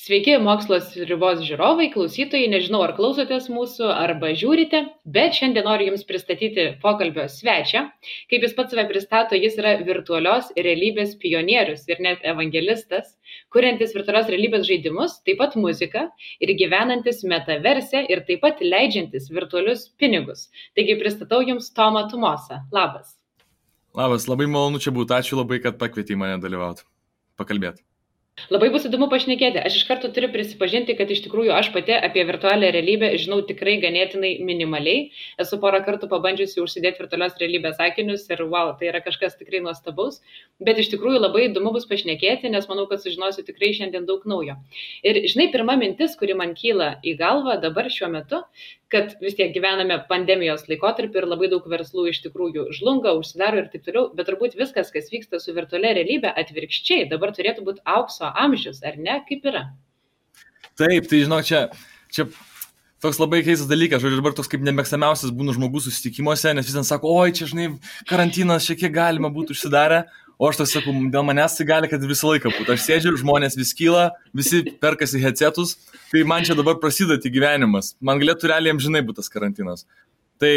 Sveiki, mokslos ribos žiūrovai, klausytojai, nežinau, ar klausotės mūsų, arba žiūrite, bet šiandien noriu Jums pristatyti pokalbio svečią. Kaip jis pats save pristato, jis yra virtualios realybės pionierius ir net evangelistas, kuriantis virtualios realybės žaidimus, taip pat muziką ir gyvenantis metaverse ir taip pat leidžiantis virtualius pinigus. Taigi pristatau Jums Tomą Tumosą. Labas. Labas, labai malonu čia būti. Ačiū labai, kad pakvietei mane dalyvauti, pakalbėti. Labai bus įdomu pašnekėti. Aš iš karto turiu prisipažinti, kad iš tikrųjų aš pati apie virtualią realybę žinau tikrai ganėtinai minimaliai. Esu porą kartų pabandžiusi užsidėti virtualios realybės akinius ir wow, tai yra kažkas tikrai nuostabaus. Bet iš tikrųjų labai įdomu bus pašnekėti, nes manau, kad sužinosiu tikrai šiandien daug naujo. Ir žinai, pirma mintis, kuri man kyla į galvą dabar šiuo metu, kad vis tiek gyvename pandemijos laikotarpį ir labai daug verslų iš tikrųjų žlunga, užsidaro ir taip toliau, bet turbūt viskas, kas vyksta su virtualia realybė, atvirkščiai, dabar turėtų būti aukso amžius, ar ne? Kaip yra? Taip, tai žinok, čia toks labai keistas dalykas, žodžiu, dabar toks kaip nemėgstamiausias būna žmogus susitikimuose, nes vis ten sako, oi, čia, žinai, karantinas, šiek tiek galima būtų užsidarę. O aš toks sakau, dėl manęs tai gali, kad visą laiką būtų. Aš sėdžiu, žmonės vis kyla, visi perkasi headsetus, tai man čia dabar prasideda gyvenimas. Man galėtų realiai amžinai būti tas karantinas. Tai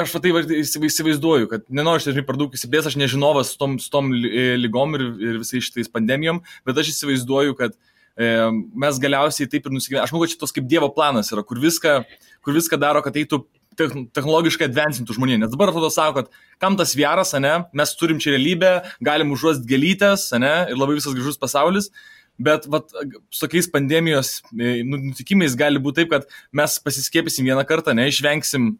aš tai įsivaizduoju, kad nenoriu štai per daug įsiplės, aš nežinovas su tom lygom ir visais šitais pandemijom, bet aš įsivaizduoju, kad mes galiausiai taip ir nusigyvename. Aš manau, kad šitos kaip Dievo planas yra, kur viską daro, kad eitų technologiškai advancintų žmonė. Nes dabar atrodo sako, kad kam tas VR'as, ane, mes turim čia realybę, galim užuost gėlytės, ane, ir labai visas gražus pasaulis, bet su tokiais pandemijos nutikimais gali būti taip, kad mes pasiskiepysim vieną kartą, ne, išvengsim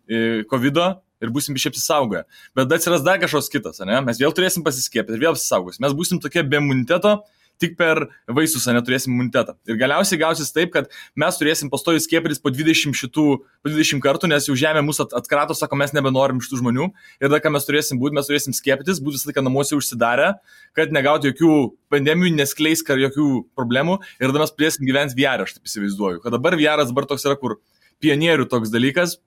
COVID'o ir būsim biškai apsisaugoję. Bet atsiras dar kažkoks kitas, ane, mes vėl turėsim pasiskiepyti ir vėl apsisaugosim. Mes būsim tokie be imuniteto, tik per vaisius neturėsim imunitetą. Ir galiausiai gausis taip, kad mes turėsim pastoviai skiepytis po 20 kartų, nes jau žemė mūsų atkrato, sako, mes nebenorim šitų žmonių. Ir tada, ką mes turėsim būti, mes turėsim skiepytis, būti visą laiką namuose užsidarę, kad negauti jokių pandemijų, neskleis jokių problemų. Ir tada mes turėsim gyventi VR, aš taip įsivaizduoju. Kad dabar VR dabar toks yra, kur pionierių toks dalykas,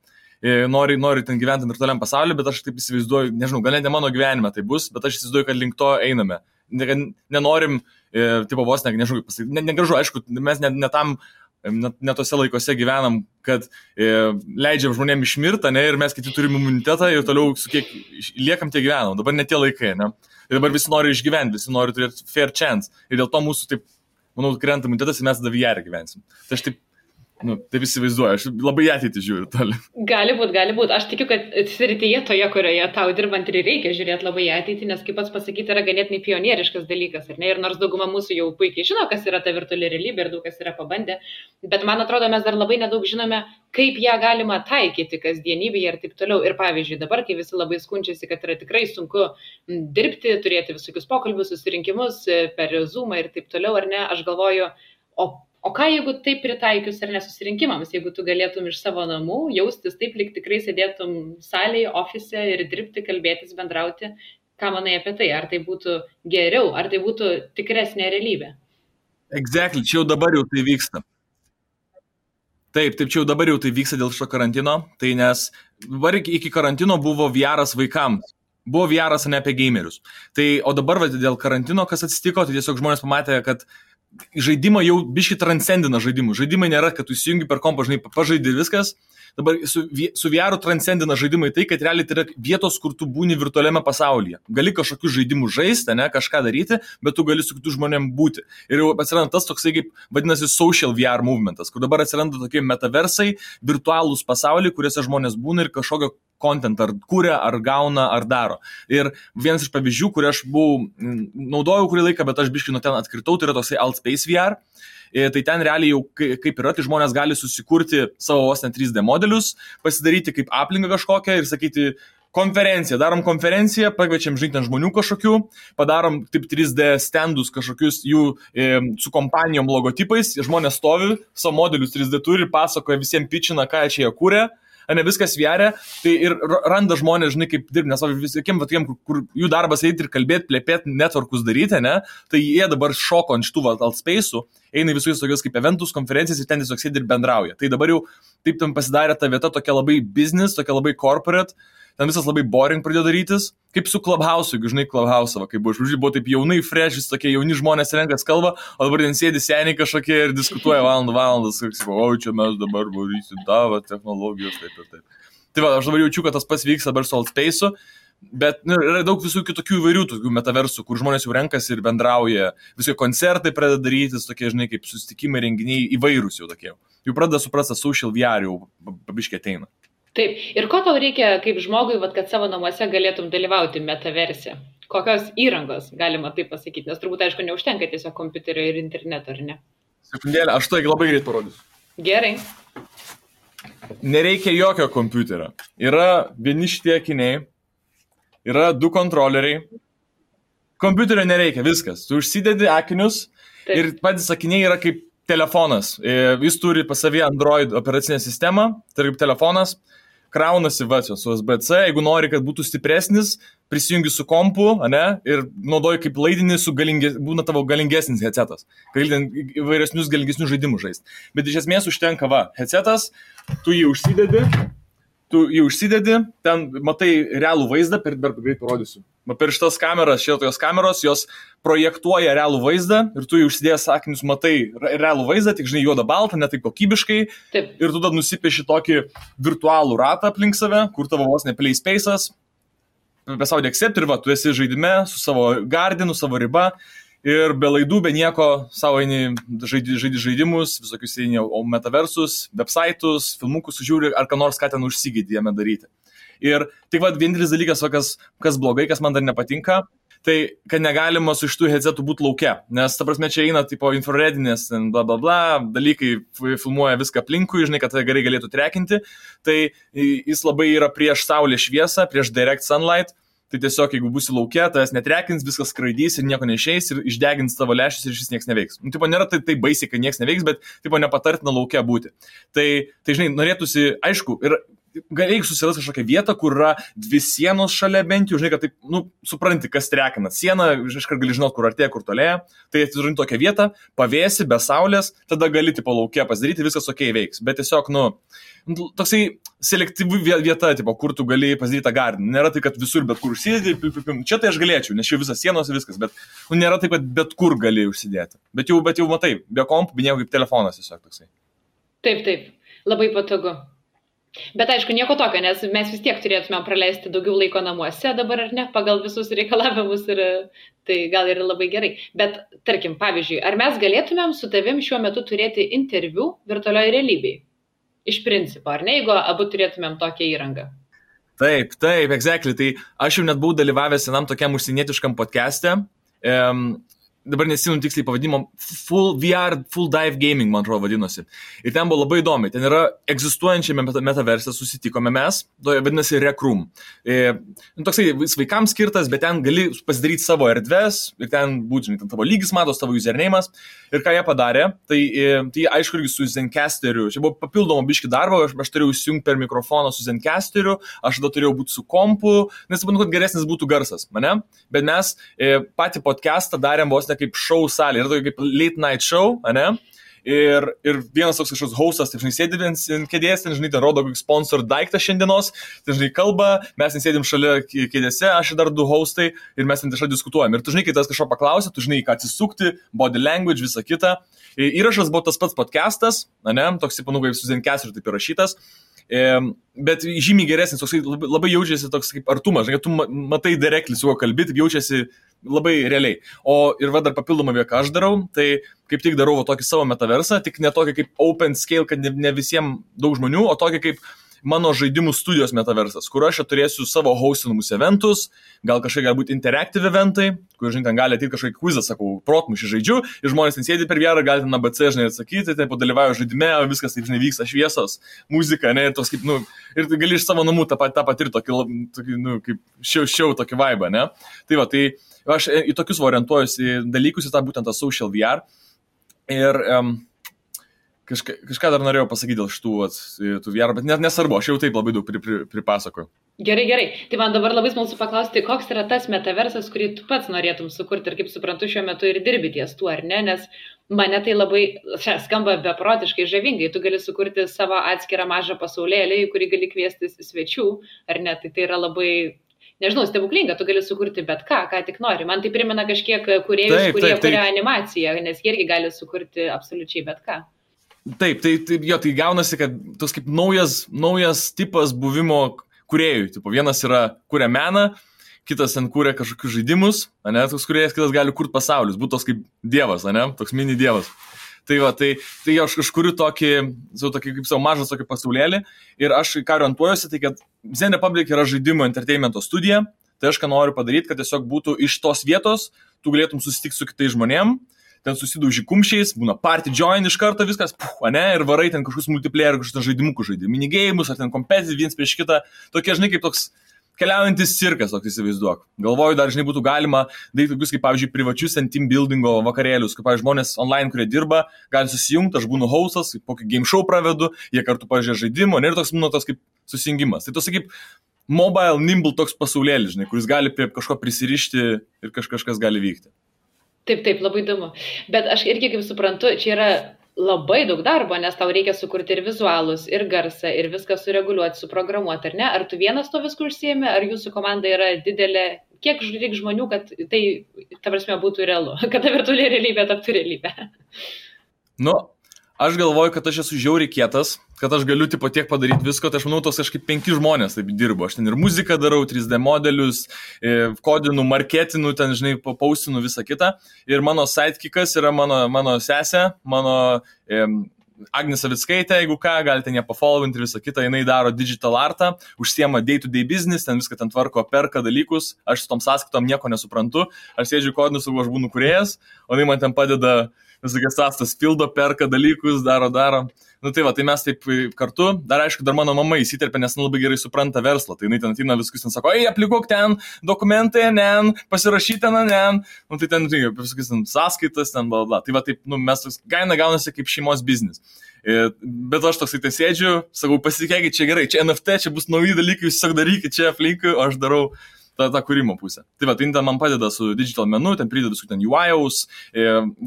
nori ten gyventi virtualiam pasauliu, bet aš taip įsivaizduoju, nežinau, gal ne mano gyvenime tai bus, bet aš įsivaizduoju, kad link to einame. Nenorim, tipo vos, nežinau, negražu, aišku, mes ne tose laikose gyvenam, kad leidžiam žmonėm išmirtą, ne, ir mes kiti turim imunitetą ir toliau su kiek liekam tie gyvenam. Dabar ne tie laikai, ne. Ir dabar visi nori išgyventi, visi nori turėti fair chance. Ir dėl to mūsų, taip, manau, krenta imunitetas ir mes tada VR gyvensim. Tai aš taip įsivaizduoju, aš labai ateitį žiūriu toli. Gali būt. Aš tikiu, kad srityje toje, kurioje tau dirbant ir reikia žiūrėti labai ateitį, nes kaip pats pasakyti, yra ganėtinai pionieriškas dalykas, ar ne? Ir nors dauguma mūsų jau puikiai žino, kas yra ta virtuali realybė ir daug kas yra pabandę, bet man atrodo, mes dar labai nedaug žinome, kaip ją galima taikyti kasdienybėje ir taip toliau. Ir pavyzdžiui, dabar, kai visi labai skundžiasi, kad yra tikrai sunku dirbti, turėti visokius pokalbius, susirinkimus per Zoomą ir taip toliau, ar ne? Aš galvoju, o ką jeigu taip pritaikius ar nesusirinkimams, jeigu tu galėtum iš savo namų jaustis taip, lyg tikrai sėdėtum salėje, ofise ir dirbti, kalbėtis, bendrauti, ką manai apie tai? Ar tai būtų geriau, ar tai būtų tikresnė realybė? Exactly, čia jau dabar jau tai vyksta. Taip, čia jau dabar jau tai vyksta dėl šio karantino, tai nes dabar iki karantino buvo VR'as vaikams. Buvo VR'as ne apie gamerius. Tai, o dabar dėl karantino, kas atsitiko, tai tiesiog žmonės pamatė, kad žaidimą jau biškai transcendina žaidimų. Žaidimai nėra, kad tu įsijungi per kompą, žinai, pažaidži ir viskas. Dabar su VR transcendina žaidimai tai, kad realiai tai yra vietos, kur tu būni virtualiame pasaulyje. Gali kažkokius žaidimus žaisti, ne, kažką daryti, bet tu gali su kitų žmonėm būti. Ir jau atsiranda tas toksai, kaip vadinasi, social VR movementas, kur dabar atsiranda tokie metaversai, virtualūs pasauliai, kuriuose žmonės būna ir kažkokio content ar kūrė, ar gauna, ar daro. Ir vienas iš pavyzdžių, kurį aš naudojau kurį laiką, bet aš biškai nuo ten atkritau, tai yra toksai Altspace VR. Tai ten realiai jau kaip yra, tai žmonės gali susikurti savo 3D modelius, pasidaryti kaip aplinką kažkokią ir sakyti konferenciją, darom konferenciją, pakviečiam žinti žmonių kažkokių, padarom taip 3D standus kažkokius jų su kompanijom logotipais, žmonės stovi, savo modelius 3D turi ir pasakoja visiems pičina, ką čia jie kūrė. Ne viskas VR, tai ir randa žmonės, žinai, kaip dirbti, nes visiekiem, kur jų darbas eiti ir kalbėti, plėpėti, networkus daryti, ne, tai jie dabar šoko ant šitų Altspace'ų, eina visus tokius kaip eventus, konferencijas ir ten tiesiog sėdi ir bendrauja. Tai dabar jau taip tam pasidarė ta vieta tokia labai business, tokia labai corporate, ten visas labai boring pradėjo darytis, kaip su Clubhouse, jeigu žinai Clubhouse, kaip buvo taip jaunai, fresh, tokie jauni žmonės renkas kalba, o dabar ten sėdi seniai kažkokie ir diskutuoja valandas, o čia mes dabar varysim tavo technologijos, taip ir taip. Tai va, aš dabar jaučiu, kad tas pats vyks dabar su Altspace'u, bet yra daug visų kitokių įvairių tokių metaversų, kur žmonės jau renkasi ir bendrauja, visokie koncertai pradeda darytis, tokie, žinai, kaip susitikimai, renginiai įvairūs jau tokie. Jau pradeda suprasti, social VR jau pabiškiai ateina. Taip, ir ko tau reikia kaip žmogui, kad savo namuose galėtum dalyvauti metaverse? Kokios įrangos, galima taip pasakyti, nes turbūt, aišku, neužtenka tiesiog kompiuterio ir interneto, ar ne? Sekundėlę, aš tai labai greit parodysiu. Gerai. Nereikia jokio kompiuterio. Yra vieni šitie akiniai, yra 2 kontroleriai. Kompiuterio nereikia, viskas. Tu užsidedi akinius ir patys akiniai yra kaip telefonas. Jis turi pas savį Android operacinę sistemą, tai kaip telefonas. Kraunasi su USB-C, jeigu nori, kad būtų stipresnis, prisijungi su kompu, ir naudoji kaip laidinį, būna tavo galingesnis headsetas. Gali įvairesnius galingesnius žaidimus žaisti. Bet iš esmės užtenka, headsetas, tu jį užsidedi, ten matai realų vaizdą, greit parodysiu. Per šitas kameras, šitos kameros, jos projektuoja realų vaizdą ir tu jį užsidėjęs akinius matai realų vaizdą, tik žinai juodą baltą, ne taip kokybiškai. Taip. Ir tu tada nusipieši tokį virtualų ratą aplink save, kur tavo vos ne play space'as, pasaulyje accept ir tu esi žaidime su savo gardinu, savo riba ir be laidų, be nieko savo žaidi žaidimus, visokius metaversus, website'us, filmukus žiūri ar ką nors, ką ten užsigydį jame daryti. Ir tik vienintelis dalykas, kas blogai, kas man dar nepatinka, tai kad negalima su šitų headsetų būti lauke, nes ta prasme čia eina tipo infraredinės, bla bla bla, dalykai filmuoja viską aplinkui, žinai, kad tai gerai galėtų trekinti, tai jis labai yra prieš saulės šviesą, prieš direct sunlight, tai tiesiog jeigu būsi lauke, tas netrekins, viskas skraidys ir nieko neišeis ir išdegins tavo lęšius ir šis nieks neveiks. Tipo nėra tai baisiai, kad nieks neveiks, bet tipo nepatartina lauke būti. Tai žinai, norėtųsi, aišku, ir reikia susirasti kažkokią vietą, kur yra 2 sienos šalia bent jau, žinai, kad taip, supranti, kas trekina. Siena, iškart gali žinoti, kur artėja, kur tolėja. Tai atsižinti tokią vietą, pavėsi, be saulės, tada gali tipo lauke pasidaryti, viskas ok veiks. Bet tiesiog, toksai selektyvi vieta, tipo, kur tu gali pasidaryti tą gardiną. Nėra tai, kad visur bet kur užsidėti, čia tai aš galėčiau, nes čia visas sienos ir viskas, bet nėra taip, kad bet kur gali užsidėti. Bet jau matai, be kompų, be nieko kaip telefonas tiesiog toksai. Taip, labai patogu. Bet aišku, nieko tokio, nes mes vis tiek turėtume praleisti daugiau laiko namuose dabar, ar ne, pagal visus reikalavimus ir tai gal ir labai gerai. Bet, tarkim, pavyzdžiui, ar mes galėtumėm su tavim šiuo metu turėti interviu virtualioje realybėje? Iš principo, ar ne, jeigu abu turėtumėm tokią įrangą? Taip, exactly. Tai aš jau net buvau dalyvavęs vienam tokiam užsienietiškam podcast'e. Dabar nesimenu tiksliai pavadinimo, Full VR, Full Dive Gaming, man atrodo, vadinosi. Ir ten buvo labai įdomi. Ten yra egzistuojančiame metaverse susitikome mes, vadinasi Rec Room. Toksai vaikams skirtas, bet ten gali pasidaryti savo erdves ir ten būtų, žinai, ten tavo lygis matos, tavo username'as. Ir ką jie padarė, tai aišku irgi su Zencastriu. Čia buvo papildomo biški darbo, aš turėjau įsijungti per mikrofoną su Zencastriu, aš tada turėjau būti su kompu, nes manau, kad geresnis būtų garsas, mane. Bet mes patį podcastą darėm vos ne kaip show salė, yra tokia kaip late night show, ane? Ir vienas toks kažkoks hostas, taip žinai, sėdi ant kėdės, ten žinai, ten rodo kokį sponsor daiktą šiandienos, ten žinai, kalba, mes ten sėdim šalia kėdėse, aš ir dar 2 hostai ir mes ten tiesiog diskutuojam. Ir tu žinai, kai tas kažko paklausė, tu žinai, ką atsisukti, body language, visa kita. Įrašas buvo tas pats podcastas, ane? Toks, kaip su Zencastriu taip įrašytas. Bet žymiai geresnis, toks labai jaučiasi toks kaip artumas, žinai, tu matai directly su kuo kalbėti, jaučiasi labai realiai. O ir dar papildomą ką aš darau, tai kaip tik darau tokį savo metaversą, tik ne tokį kaip open scale, kad ne visiems daug žmonių, o tokį kaip mano žaidimų studijos metaversas, kur aš turėsiu savo hostinamus eventus, gal kažkokie galbūt interactive eventai, kur, žinai, ten gali ateiti kažkokį quizą, sakau, protmušį žaidžiu, ir žmonės ten sėdi per VR, gali ten ABC, žinai, atsakyti, tai padalyvauju žaidime, viskas taip, žinai, vyksta šviesos, muzika, ne, ir toks kaip, ir gali iš savo namų tą patirti tokį, kaip šiau tokį vibe, ne. Tai va, tai aš į tokius orientuojuosi dalykus, į tą būtent tą social VR. Ir kažką dar norėjau pasakyti dėl šitų VR, bet nesvarbu, aš jau taip labai daug pripasakoju. Gerai. Tai man dabar labai smalsu paklausti, koks yra tas metaversas, kurį tu pats norėtum sukurti ir kaip suprantu, šiuo metu ir dirbi ties tuo, ar ne? Nes mane tai labai skamba beprotiškai žavingai. Tu gali sukurti savo atskirą mažą pasaulėlį, į kurį gali kviestis svečių, ar ne? Tai yra labai, nežinau, stebuklinga, tu gali sukurti bet ką tik nori. Man tai primena kažkiek kūrėjus, kurie kuria animaciją, nes jie irgi gali sukurti absoliučiai bet ką. Taip, tai gaunasi, kad tas kaip naujas tipas buvimo kūrėjų. Tipo, vienas kuria meną, kitas ten kuria kažkokius žaidimus, ane, toks kūrėjas, kitas gali kurti pasaulius, būtų toks kaip dievas, ane, toks mini dievas. Tai aš kuriu tokį kaip savo mažas tokį pasaulėlį ir aš ką orientuojuosi, tai kad Zen Republic yra žaidimo entertainmento studija, tai aš ką noriu padaryti, kad tiesiog būtų iš tos vietos, tu galėtum susitikti su kitais žmonėm, ten susidauži kumščiais, būna party join iš karto viskas, ane, ir varai ten kažkokius multiplayer, kažkokius žaidimukų žaidimų, minigėjimus, ar ten competitive viens prieš kitą, tokie, žinai, kaip toks keliaujantis cirkas, toks įsivaizduok. Galvoju, dar, žinai, būtų galima daryti tokius, kaip, pavyzdžiui, privačius team buildingo vakarėlius, kaip, pavyzdžiui, žmonės online, kurie dirba, gali susijungti, aš būnu hostas, kokį game show pravedu, jie kartu pažiūrė žaidimo, ir toks, būna toks kaip susijungimas. Tai toks, kaip mobile, nimble toks pasaulėlis, žinai, kuris gali prie kažko prisirišti ir kažkas gali vykti. Taip, labai įdomu. Bet aš irgi, kaip suprantu, čia yra labai daug darbo, nes tau reikia sukurti ir vizualus, ir garsą, ir viską sureguliuoti, suprogramuoti, ar ne? Ar tu vienas to viską užsiėmė, ar jūsų komanda yra didelė? Kiek reikia žmonių, kad tai, ta prasme, būtų realu, kad ta virtuali realybė taptų realybė? Nu, aš galvoju, kad aš esu žiauriai kietas, kad aš galiu tipo tiek padaryti visko, tai aš manau, tos kažkaip 5 žmonės taip dirbo. Aš ten ir muziką darau, 3D modelius, kodinu, marketinu, ten, žinai, paustinu visą kitą. Ir mano sidekickas yra mano sesė, mano Agnė Savickaitė, jeigu ką, galite ją pafollowinti ir visą kitą. Jinai daro digital artą, užsiema day-to-day business, ten viską ten tvarko, perka dalykus. Aš su tom sąskaitom nieko nesuprantu. Aš sėdžiu kodinu, sakau, aš būnu kūrėjas, o jinai man ten padeda visokias sąstas pildo, perka dalykus, daro. Nu tai va, tai mes taip kartu, dar aišku, dar mano mama įsiterpia, nes labai gerai supranta verslą, tai jinai ten ateina viskus ten sako, aplikuok ten, dokumentai, pasirašyti ten, nu tai ten, visokias ten sąskaitas, ten, bla. Tai va taip, nu mes toks gaunasi kaip šeimos biznis. Bet aš toksai tai sėdžiu, sakau, pasitikėkit, čia gerai, čia NFT, čia bus nauji dalykai, jūs tiesiog darykit čia aplinkui, o aš darau tą kūrimo pusę. Tai va, tai ten man padeda su digital menu, ten prideda su ten UI'aus,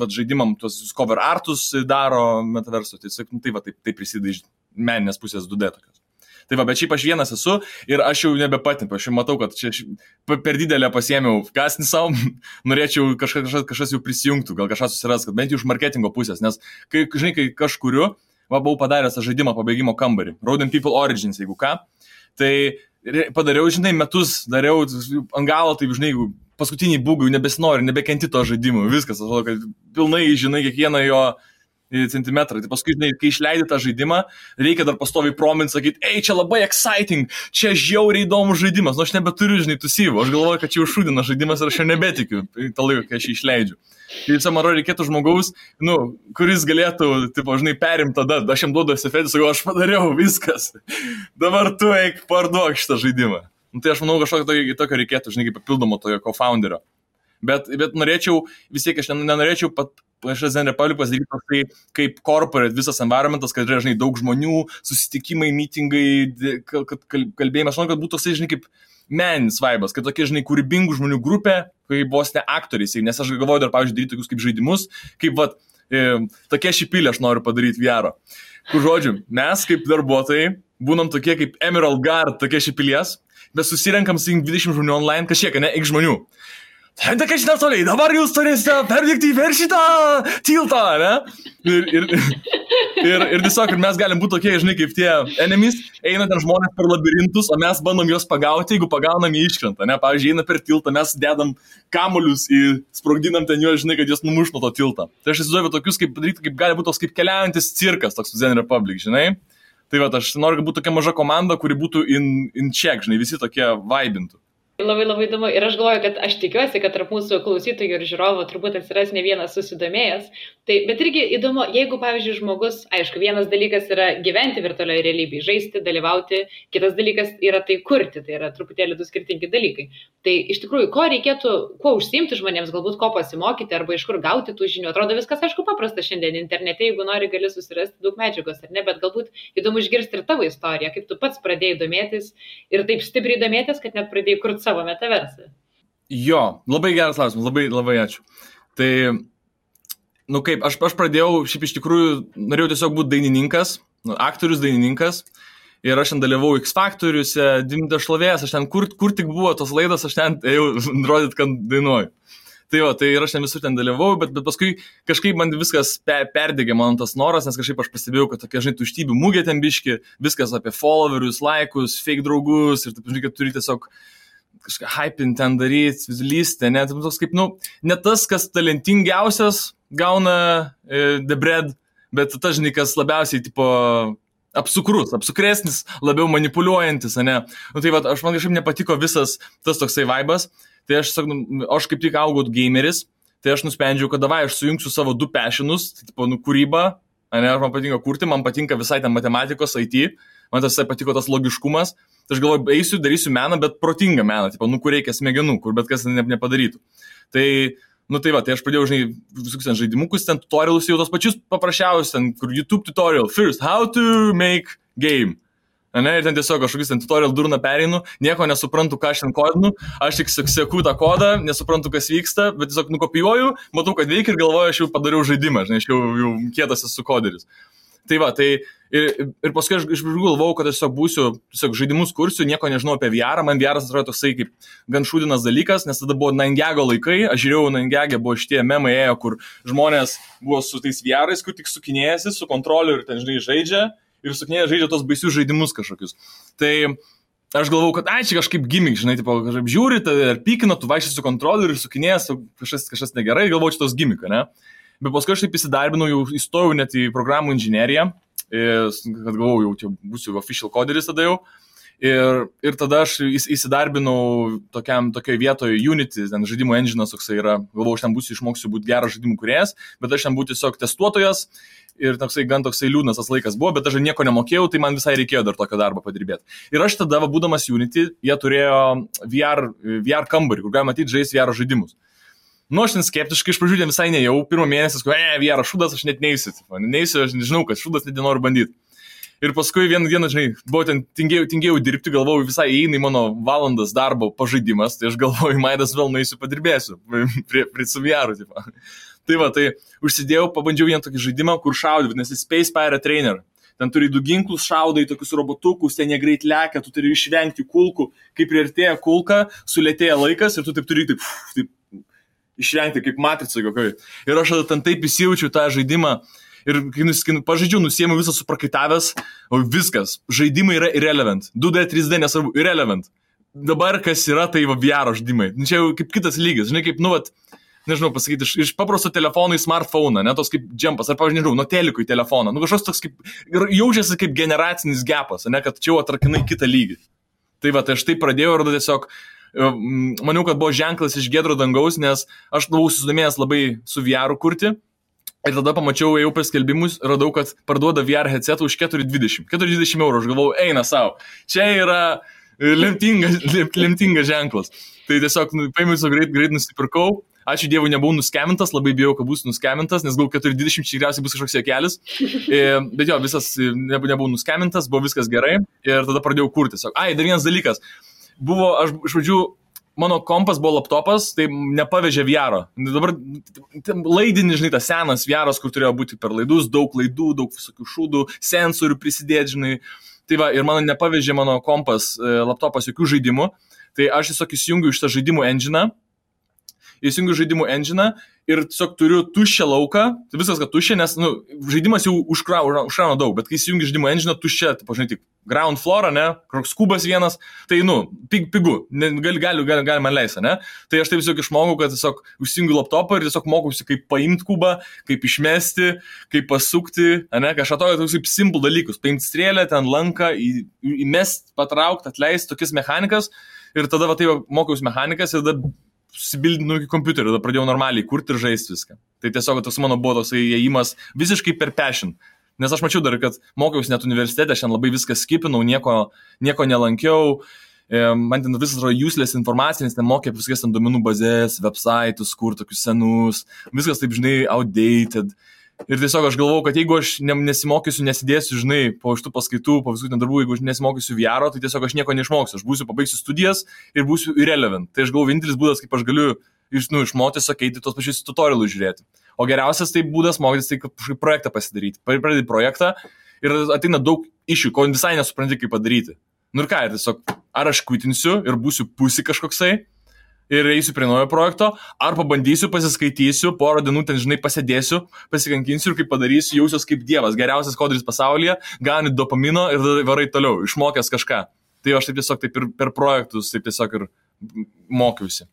žaidimam tuos cover artus daro metaverso, tai va, taip prisideda iš meninės pusės 2D tokios. Tai va, bet šiaip aš vienas esu ir aš jau nebepatimpiu, aš jau matau, kad čia per didelę pasiėmiau kasnį savo, norėčiau kažkas jau prisijungtų, gal kažkas susiras, kad bent jau iš marketingo pusės, nes kai kažkuriu, buvau padaręs tą žaidimą pabaigimo kambarį, Rodent People Origins, jeigu ką, tai padariau, žinai, metus dariau ant galo, taip, žinai, paskutiniai bugai, nebesinori, nebekenti to žaidimo, viskas, atrodo, kad pilnai, žinai, kiekvieną jo centimetrą. Tai paskui, žinai, kai išleidai tą žaidimą, reikia dar pastoviai promint, sakyti, čia labai exciting, čia žiauriai įdomus žaidimas, nu aš nebeturiu, žinai, tų syvų, aš galvoju, kad čia užšūdina žaidimas ir aš jau nebetikiu tą laiką, kai aš jį išleidžiu. Tai visą man reikėtų žmogaus, nu, kuris galėtų, tipo, žinai, perimti tada, aš jam duodu esefetį, sakau, aš padariau, viskas, dabar tu eik parduok šitą žaidimą. Nu, tai aš manau, kažkokio tokio reikėtų, žinai, kaip papildomo tojo co-founderio. Bet norėčiau, vis tiek aš nenorėčiau Zen Republic pasidaryti toksai kaip corporate visas environmentas, kad yra, žinai, daug žmonių, susitikimai, mitingai, kalbėjimas, aš manau, kad būtų toksai, žinai, kaip meninis vaibas, kad tokie, žinai, kūrybingų žmonių grupė, kaip vos ne aktoriai, nes aš galvoju dar, pavyzdžiui, daryti tokius kaip žaidimus, kaip, vat, tokie šipilė aš noriu padaryti VR. Kur, žodžiu, mes kaip darbuotojai būnam tokie kaip Emerald Guard, tokie šipilės, bet susirenkam su 20 žmonių online, kažkiek, ne, iki žmonių. Tai ką šitą toliai, dabar jūs turėsite perdėkti per šitą tiltą, ne? Ir tiesiog, mes galim būti tokie, žinai, kaip tie enemies, eina ten žmonės per labirintus, o mes bandom juos pagauti, jeigu pagaunam jį iškrenta, ne? Pavyzdžiui, eina per tiltą, mes dedam kamuolius sprogdinam ten juos, žinai, kad juos numuš nuo to tiltą. Tai aš įsivaizduoju tokius, kaip gali būti toks kaip keliaujantis cirkas, toks Zen Republic, žinai? Tai va, aš noriu, kad būtų tokia maža komanda, kuri būtų in check, žinai, visi tokie vaibintų. Labai labai įdomu. Ir aš galvoju, kad aš tikiuosi, kad tarp mūsų klausytojų ir žiūrovų turbūt atsiras ne vienas susidomėjęs. Tai, bet irgi įdomu, jeigu, pavyzdžiui, žmogus, aišku, vienas dalykas yra gyventi virtualioje realybėje, žaisti, dalyvauti, kitas dalykas yra tai kurti, tai yra truputėlį du skirtingi dalykai. Tai iš tikrųjų, ko reikėtų, kuo užsiimti žmonėms, galbūt ko pasimokyti arba iš kur gauti tų žinių. Atrodo viskas, aišku, paprasta šiandien internete, jeigu nori, gali susirasti daug medžiagos, ar ne, bet galbūt įdomu išgirsti ir tavo istoriją, kaip tu pats pradėjai domėtis ir taip stipriai domėtis, kad net pradėjai kurti savo metaversą. Jo, labai geras klausimas, labai ačiū. Tai, kaip, aš pradėjau, šiaip iš tikrųjų, norėjau tiesiog būti dainininkas, aktorius dainininkas, ir aš ten dalyvau X Faktoriuose, Dimta šlovės, aš ten, kur tik buvo tos laidos, aš ten ėjau rodyt, kad dainuoju. Tai ir aš ten visur ten dalyvau, bet paskui kažkaip man viskas perdegė man tas noras, nes kažkaip aš pastebėjau, kad tokia, žinai, tuštybių mugė ten biški, viskas apie followerius, laikus, fake draugus ir taip, žinai, kad turi tiesiog kažką hypin ten daryti, lysti, ne, tai toks kaip, ne tas, kas talentingiausias gauna the bread, bet tas, žinai, kas labiausiai, tipo, apsukresnis, labiau manipuliuojantis, ne. Tai va, man kažkaip nepatiko visas tas toksai vaibas, tai aš kaip tik augau gameris, tai aš nusprendžiau, kad davai, aš sujungsiu savo du passionus, tai tipo, kūrybą, ne, man patinka kurti, man patinka visai ten matematikos, IT, man tas patiko tas logiškumas, tai aš galvoju, eisiu, darysiu meną, bet protingą meną, tipo, kur reikia smegenų, kur bet kas nepadarytų. Tai, tai va, tai aš pradėjau, žinai, visokius ten žaidimukus, ten tutorialus jau tos pačius paprasčiausius, ten, kur YouTube tutorial, first, how to make game. Ne, ir ten tiesiog kažkokius ten tutorial durną pereinu, nieko nesuprantu, ką aš ten kodinu, aš tik seku tą kodą, nesuprantu, kas vyksta, bet tiesiog nukopijuoju, matau, kad veikia ir galvoju, aš jau padariau žaidimą, žinai, aš jau kietas esu koderis. Tai va, tai ir paskui aš iš pradžių galvojau, kad aš tiesiog būsiu, tiesiog žaidimus kursiu, nieko nežinau apie VR, man VR atrodo toksai kaip gan šūdinas dalykas, nes tada buvo 9gag laikai, aš žiūrėjau 9gag, buvo šitie memai ėjo, kur žmonės buvo su tais VR'ais, kur tik sukinėjasi, su kontroliu ir ten, žinai, žaidžia. Ir sukinėje žaidžia tos baisius žaidimus kažkokius. Tai aš galvau, kad čia kažkaip gimmick, žinai, tipo, kažkaip žiūri, ar pykina, tu vaikščiai su kontroliu ir sukinėjęs, kažkas negerai, galvau, čia tos gimmick, ne? Bet paskui aš taip įsidarbinau, jau įstojau net į programų inžineriją, kad galvau, jau čia būsiu official coderis tada jau. Ir tada aš įsidarbinau tokioje vietoje Unity, ten žaidimų engine'as toksai yra, galvau, aš ten būsiu, išmoksiu būti geras žaidimų kūrėjas, bet aš ten būsiu tiesiog testuotojas ir gan toksai liūdnas tas laikas buvo, bet aš nieko nemokėjau, tai man visai reikėjo dar tokio darbo padirbėti. Ir aš tada, būdamas Unity, jie turėjo VR kambarį, kur galima matyti žaisti VR žaidimus. Aš ten skeptiškai iš pradžių visai nejau, pirmą mėnesį, VR šūdas, aš net neįsiu, aš nežinau, kad šūdas net nenoriu bandyti. Ir paskui vieną dieną, žinai, buvo ten tingėjau dirbti, galvojau, visai įeina į mano valandas darbo pažaidimas, tai aš galvoju, maidas vėl nueisiu padirbėsiu, prie su VR, tipo. Tai va, tai užsidėjau, pabandžiau vieną tokį žaidimą, kur šaudė, vadinasi Space Pirate Trainer. Ten turi 2 ginklus, šaudai tokius robotukus, ten jie greit lekia, tu turi išvengti kulkų, kai priartėja kulka, sulėtėja laikas ir tu taip turi taip išvengti kaip matricai kokioj. Ir aš ten taip įsijaučiu tą žaidimą. Ir kai pažaidžiu, nusiėmiau visą suprakaitavęs, o viskas, žaidimai yra irrelevant, 2D, 3D nesvarbu, irrelevant. Dabar kas yra, tai VR žaidimai. Čia jau kaip kitas lygis, žinai, kaip, nežinau pasakyti, iš paprasto telefono į smartphone, ne, tos kaip džempas, ar pavyzdžiui, nežinau, nuo teliko į telefoną, kažkoks toks kaip, jaučiasi kaip generacinis gapas, ne, kad čia jau atrakinai kitą lygį. Tai va, tai aš taip pradėjau ir tiesiog, maniau, kad buvo ženklas iš giedro dangaus, nes aš buvau susidomėjęs labai su VR kurti. Ir tada pamačiau, ėjau per skelbimus, radau, kad parduoda VR headsetą už 420 eurų. Aš galvau, eina savo. Čia yra lemtingas ženklas. Tai tiesiog paėmiau greit nusipirkau. Ačiū Dievui, nebuvau nuskemintas, labai bijau, kad būsiu nuskemintas, nes gal 420 tikriausiai bus kažkoks juokelis. Bet jo, visas nebuvau nuskemintas, buvo viskas gerai. Ir tada pradėjau kurti. Dar vienas dalykas. Buvo, aš iš pradžių, mano kompas buvo laptopas, tai nepavežė VR-o. Dabar laidinį, žinai, tas senas VR-os, kur turėjo būti per laidus, daug laidų, daug visokių šūdų, sensorių prisidėti, žinai. Tai va, ir mano nepavežė mano kompas, laptopas jokių žaidimų. Tai aš tiesiog įsijungiu iš tą žaidimų engine'ą. Ir tiesiog turiu tuščią lauką, tai viskas, kad tuščia, nes žaidimas jau užkrauna daug, bet kai įsijungi žaidimų engine'ą, tuščia, tai pažinai, tik ground floor, ne, koks kubas vienas, tai, pigu, galima leisti, ne. Tai aš taip tiesiog išmokau, kad tiesiog užsijungiu laptopą ir tiesiog mokausi, kaip paimti kubą, kaip išmesti, kaip pasukti, ne, kažką tokius kaip simple dalykus, paimti strėlę, ten lanką, įmest, patraukti, atleisti, tokias mechanikas. ir tada va, tai mokiausi mechanikas ir tada susibildinau iki kompiuterio, tada pradėjau normaliai kurti ir žaisti viską. Tai tiesiog toks mano buvo toks įėjimas visiškai per passion. Nes aš mačiau dar, kad mokiausi net universitete, aš ten labai viską skipinau, nieko nelankiau. Man ten visas yra useless informacija, nes ten mokė viskas ten duomenų bazės, websaitus, kur tokius senus, viskas taip, žinai, outdated. Ir tiesiog aš galvojau, kad jeigu aš nesimokysiu, nesidėsiu, žinai, po šitų paskaitų, po visų ten darbų, jeigu aš nesimokysiu VR, tai tiesiog aš nieko neišmoksiu. Aš pabaigsiu studijas ir būsiu irrelevant. Tai aš galvoju, vienintelis būdas, kaip aš galiu išmokti, sakyti, tos pačius tutorialus žiūrėti. O geriausias tai būdas mokytis, tai kažkaip projektą pasidaryti. Pradedi projektą ir ateina daug iššūkių, ko visai nesupranti, kaip padaryti. Nu ir ką, tiesiog, ar aš kvitinsiu ir būsiu pusi kažkoksai ir eisiu prie naujo projekto, ar pabandysiu, pasiskaitysiu, porą dienų ten, žinai, pasėdėsiu, pasikankinsiu ir kaip padarysiu, jausiuos kaip dievas, geriausias koderis pasaulyje, gauni dopamino ir varai toliau, išmokęs kažką. Tai aš taip tiesiog taip ir per projektus, taip tiesiog ir mokiausi.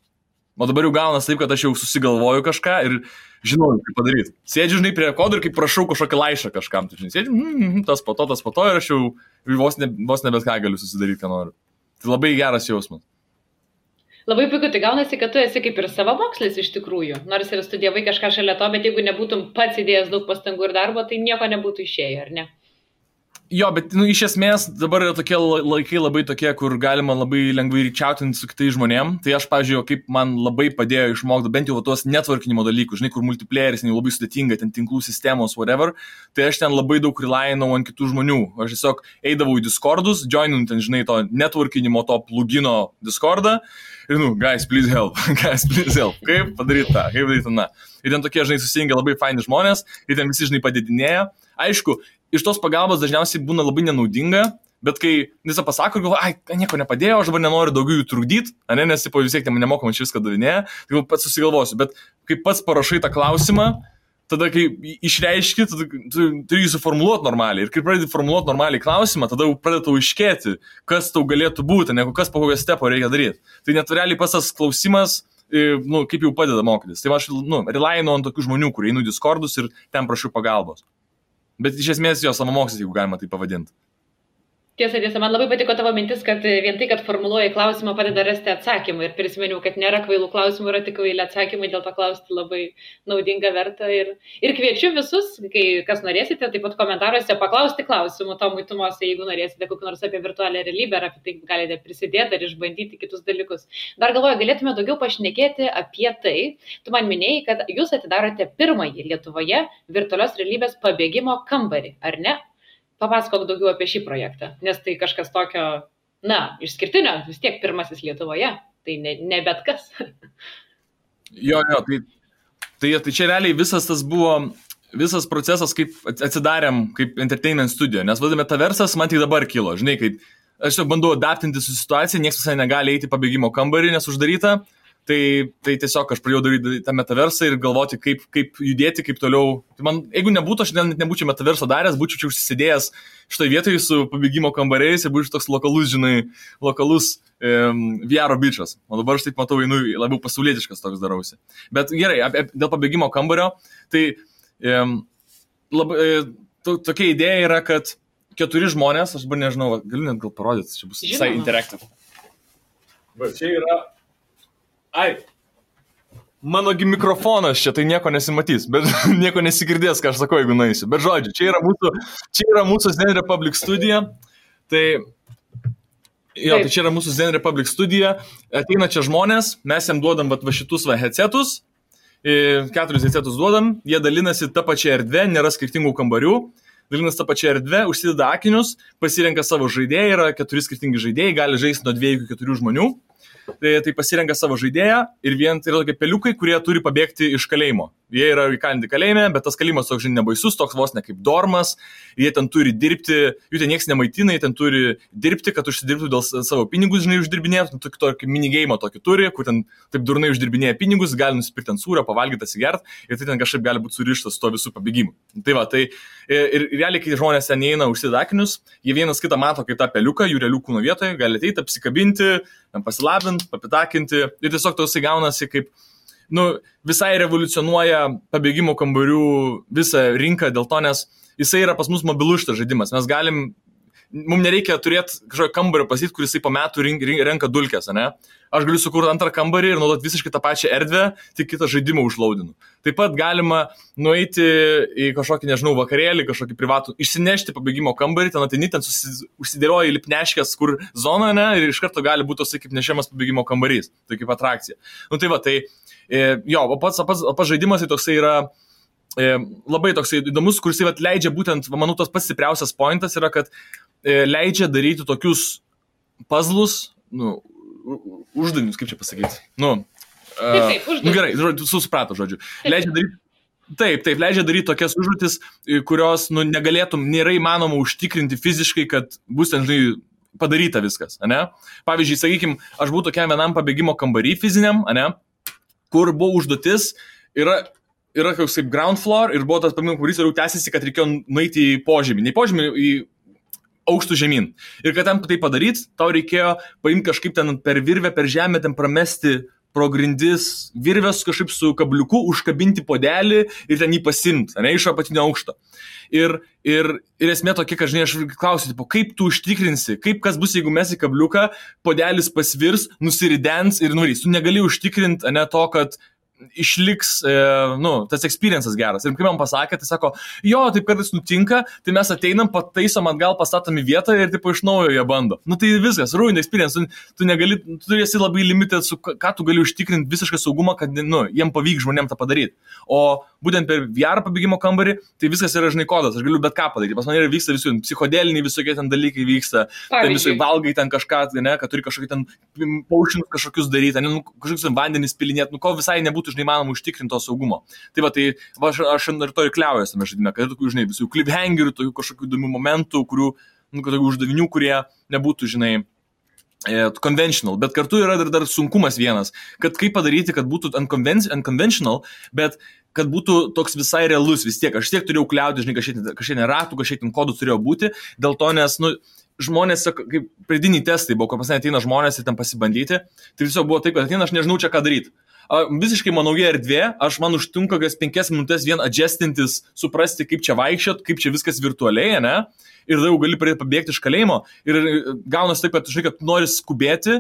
O dabar jau gaunas taip, kad aš jau susigalvoju kažką ir žinau, kaip padaryti. Sėdžiu, žinai, prie kodų ir kaip prašau kažkokį laišką kažkam. Tai, žinai, sėdžiu, tas po to ir aš jau vos ne bet ką galiu susidaryti, ką noriu. Tai labai geras jausmas. Labai puiku, tai gaunasi, kad tu esi kaip ir savamokslis iš tikrųjų. Nors ir studijavai kažką šalia to, bet jeigu nebūtum pats įdėjęs daug pastangų ir darbo, tai nieko nebūtų išėję, ar ne? Jo, bet iš esmės dabar yra tokie laikai labai tokie, kur galima labai lengvai ryčiautinti su kitais žmonėm. Tai aš, pavyzdžiui, kaip man labai padėjo išmokti bent jau tuos networkinimo dalykus, žinai, kur multiplayeris labai sudėtinga, ten tinklų sistemos, whatever. Tai aš ten labai daug relainau ant kitų žmonių. Aš tiesiog eidavau į Discordus, joininu ten, žinai, to networkinimo, to plugino Discordą. Ir, guys, please help. Kaip padaryti tą, kaip daryti tą. Ir ten tokie, žinai, susijungia labai faini žmonės, ir ten visi, žinai, padidinėja. Aišku, iš tos pagalbos dažniausiai būna labai nenaudinga, bet kai visą pasako, galvoju, nieko nepadėjo, aš dabar nenoriu daugiau jų trukdyti, nes po vis tiek nemokamai čia viską davinėja, tai pats susigalvosiu, bet kai pats parašai tą klausimą, tada kai išreiški, tada turi jį suformuluoti normaliai. Ir kai pradedi formuluoti normaliai klausimą, tada pradedi tau iškėti, kas tau galėtų būti, negu kas po kokio stepo reikia daryti. Tai net realiai pas tas klausimas, kaip jau padeda mokytis. Tai aš relainu ant tokių žmonių, kurie einu į Discordus ir ten prašau pagalbos. Bet iš esmės jo savamokslis, jeigu galima tai pavadinti. Tiesa, man labai patiko tavo mintis, kad vien tai, kad formuluoji klausimą, padeda rasti atsakymą. Ir prisiminiau, kad nėra kvailų klausimų, yra tik kvaili atsakymai, dėl to klausti labai naudinga verta. Ir kviečiu visus, kai kas norėsite, taip pat komentaruose paklausti klausimų Tomui Tumosai, jeigu norėsite kokį nors apie virtualią realybę, ar apie tai galite prisidėti ar išbandyti kitus dalykus. Dar galvoju, galėtume daugiau pašnekėti apie tai. Tu man minėjai, kad jūs atidarote pirmąjį Lietuvoje virtualios realybės pabėgimo kambarį, ar ne? Papasakok daugiau apie šį projektą, nes tai kažkas tokio, išskirtinio, vis tiek pirmasis Lietuvoje, tai ne bet kas. Jo, tai čia realiai visas procesas, kaip atsidarėm kaip entertainment studio, nes vadame Metaversas, man tik dabar kilo, žinai, kaip aš jau bandau adaptinti su situacija, niekas visai negali eiti į pabėgimo kambarį, nes uždaryta. Tai tiesiog aš pradėjau daryti tą metaversą ir galvoti, kaip judėti, kaip toliau. Tai man, jeigu nebūtų, aš nebūčiau metaverso daręs, būčiau čia užsisidėjęs šitoje vietoje su pabėgimo kambariais ir būčiau toks lokalus VR bičas. O dabar aš taip matau, labiau pasaulietiškas toks darausi. Bet gerai, dėl pabėgimo kambario, tai tokia idėja yra, kad 4 žmonės, aš dabar nežinau, galiu net gal parodyti, čia bus visai interactive. Bet čia yra... Manogi mikrofonas čia, tai nieko nesimatys, bet nieko nesigirdės, ką aš sakau, jeigu nueisiu. Bet žodžiu, čia yra mūsų Zen Republic studija. Tai čia yra mūsų Zen Republic studija. Ateina čia žmonės, mes jam duodam va šitus headsetus, 4 headsetus duodam, jie dalinasi tą pačią erdvę, nėra skirtingų kambarių. Dalinasi tą pačią erdvę, užsideda akinius, pasirenka savo žaidėją, yra 4 skirtingi žaidėjai, gali žaisti nuo 2 iki 4 žmonių. Tai pasirenka savo žaidėją ir vien tai yra tokie peliukai, kurie turi pabėgti iš kalėjimo. Jie yra įkalinti kalėjime, bet tas kalėjimas toks nebaisus, toks vos ne kaip dormas, jie ten turi dirbti, jų ten nieks nemaitina, jie ten turi dirbti, kad užsidirbtų dėl savo pinigus, žinai, uždirbinėtų, tokį minigeimą tokį turi, kur ten taip durnai uždirbinėja pinigus, gali nusipirkti ant sūrio, pavalgyti, atsigert ir tai ten kažkaip gali būti surištas su to visų pabėgimu. Tai va, tai ir realiai, kai žmonės ten eina užsideda akinius, jie vienas kitą mato kaip tą peliuką, jų realių kūno vietoje, gali ateiti, apsikabinti, pasilabinti, papitakinti ir tiesiog tosai gaunasi kaip visai revoliucionuoja pabėgimo kambarių visą rinką dėl to, nes jisai yra pas mus mobilus šitas žaidimas. Mes galim mums nereikia turėti kažkokio kambario pasityti, kuris po metų renka dulkes, ne? Aš galiu sukurti antrą kambarį ir naudoti visiškai tą pačią erdvę, tik kitą žaidimą užlaudinu. Taip pat galima nueiti į kažkokį, nežinau, vakarėlį, kažkokį privatų, išsinešti pabėgimo kambarį, ten ateini, ten užsidėlioja lipneškės, kur zona, ne, ir iš karto gali būti toksai kaip nešiamas pabėgimo kambarys, tai kaip atrakcija. Nu tai va, tai jo, o pats žaidimas tai toksai yra labai toksai įdomus, kuris leidžia būtent, manau, tas pats stipriausias pointas yra, kad leidžia daryti tokius puzzlus, nu, uždavinius, kaip čia pasakyti. Taip, gerai, suprato, žodžiu. Leidžia daryti, leidžia daryti tokias užduotis, kurios, nėra įmanoma užtikrinti fiziškai, kad bus ten, žinai, padaryta viskas, ane? Pavyzdžiui, sakykime, aš buvau tokiam vienam pabėgimo kambarį fiziniam, ane? Kur buvo užduotis, yra koks kaip ground floor ir buvo tas pabėgimo kambarys ir jau tęsiasi, kad reikėjo nueiti į požemį. Ne į požemį, į aukštų žemyn. Ir kad ten tai padaryti, tau reikėjo paimti kažkaip ten per virvę, per žemę, ten pramesti pro grindis virvės kažkaip su kabliuku, užkabinti podelį ir ten jį pasimti, ne, iš apatinio aukšto. Ir esmė tokia, kad, žinai, aš klausiu, kaip tu užtikrinsi, kas bus, jeigu mes į kabliuką, podelis pasvirs, nusiridens ir nuvarys. Tu negali užtikrinti, ne, to, kad išliks, tas experiences geras. Ir kai man pasakė, tai sako, jo, taip kartais nutinka, tai mes ateinam, pataisom atgal, pastatom į vietą ir taip iš naujo jie bando. Nu tai viskas, ruined experience, tu negali, tu esi labai limited, ką tu gali užtikrinti visišką saugumą, kad, jiem pavyks žmonėm tą padaryti. O būtent per VR pabėgimo kambarį, tai viskas yra, žinai, kodas, aš galiu bet ką padaryti. Pas man yra vyksta visų, psichodeliniai visokie ten dalykai vyksta, ten visai valgai ten kažką, ne, kad turi kažkokį ten potions kažkokius daryti, ne, kažkokius vandenis pilinėti, ko visai nebūtų, žinai, manoma užtikrinti to saugumo. Tai va, tai aš ir to ir kliaujuosi tame žaidime, kad tokių, žinai, visų cliffhangerių, tokių kažkokių įdomių momentų, kurių, tokių uždavinių, kurie nebūtų, žinai, conventional, bet kartu yra dar sunkumas vienas, kad kaip padaryti, kad būtų unconventional, bet kad būtų toks visai realus vis tiek. Aš tiek turėjau kliauti, žinai, kažkiek ratų, kažkiek kodų turėjo būti, dėl to, nes, žmonės, kaip pradiniai testai buvo, kur pasai ateina žmonės ir ten pasibandyti, tai tiesiog buvo taip, kad ateina, aš nežinau čia ką daryti. Visiškai nauja erdvė, man užtunka 5 minutės vien adjustintis, suprasti, kaip čia vaikščiot, kaip čia viskas virtualiai, ne? Ir tada jau gali pradėti pabėgti iš kalėjimo. Ir gaunasi taip, kad, žinai, kad nori skubėti,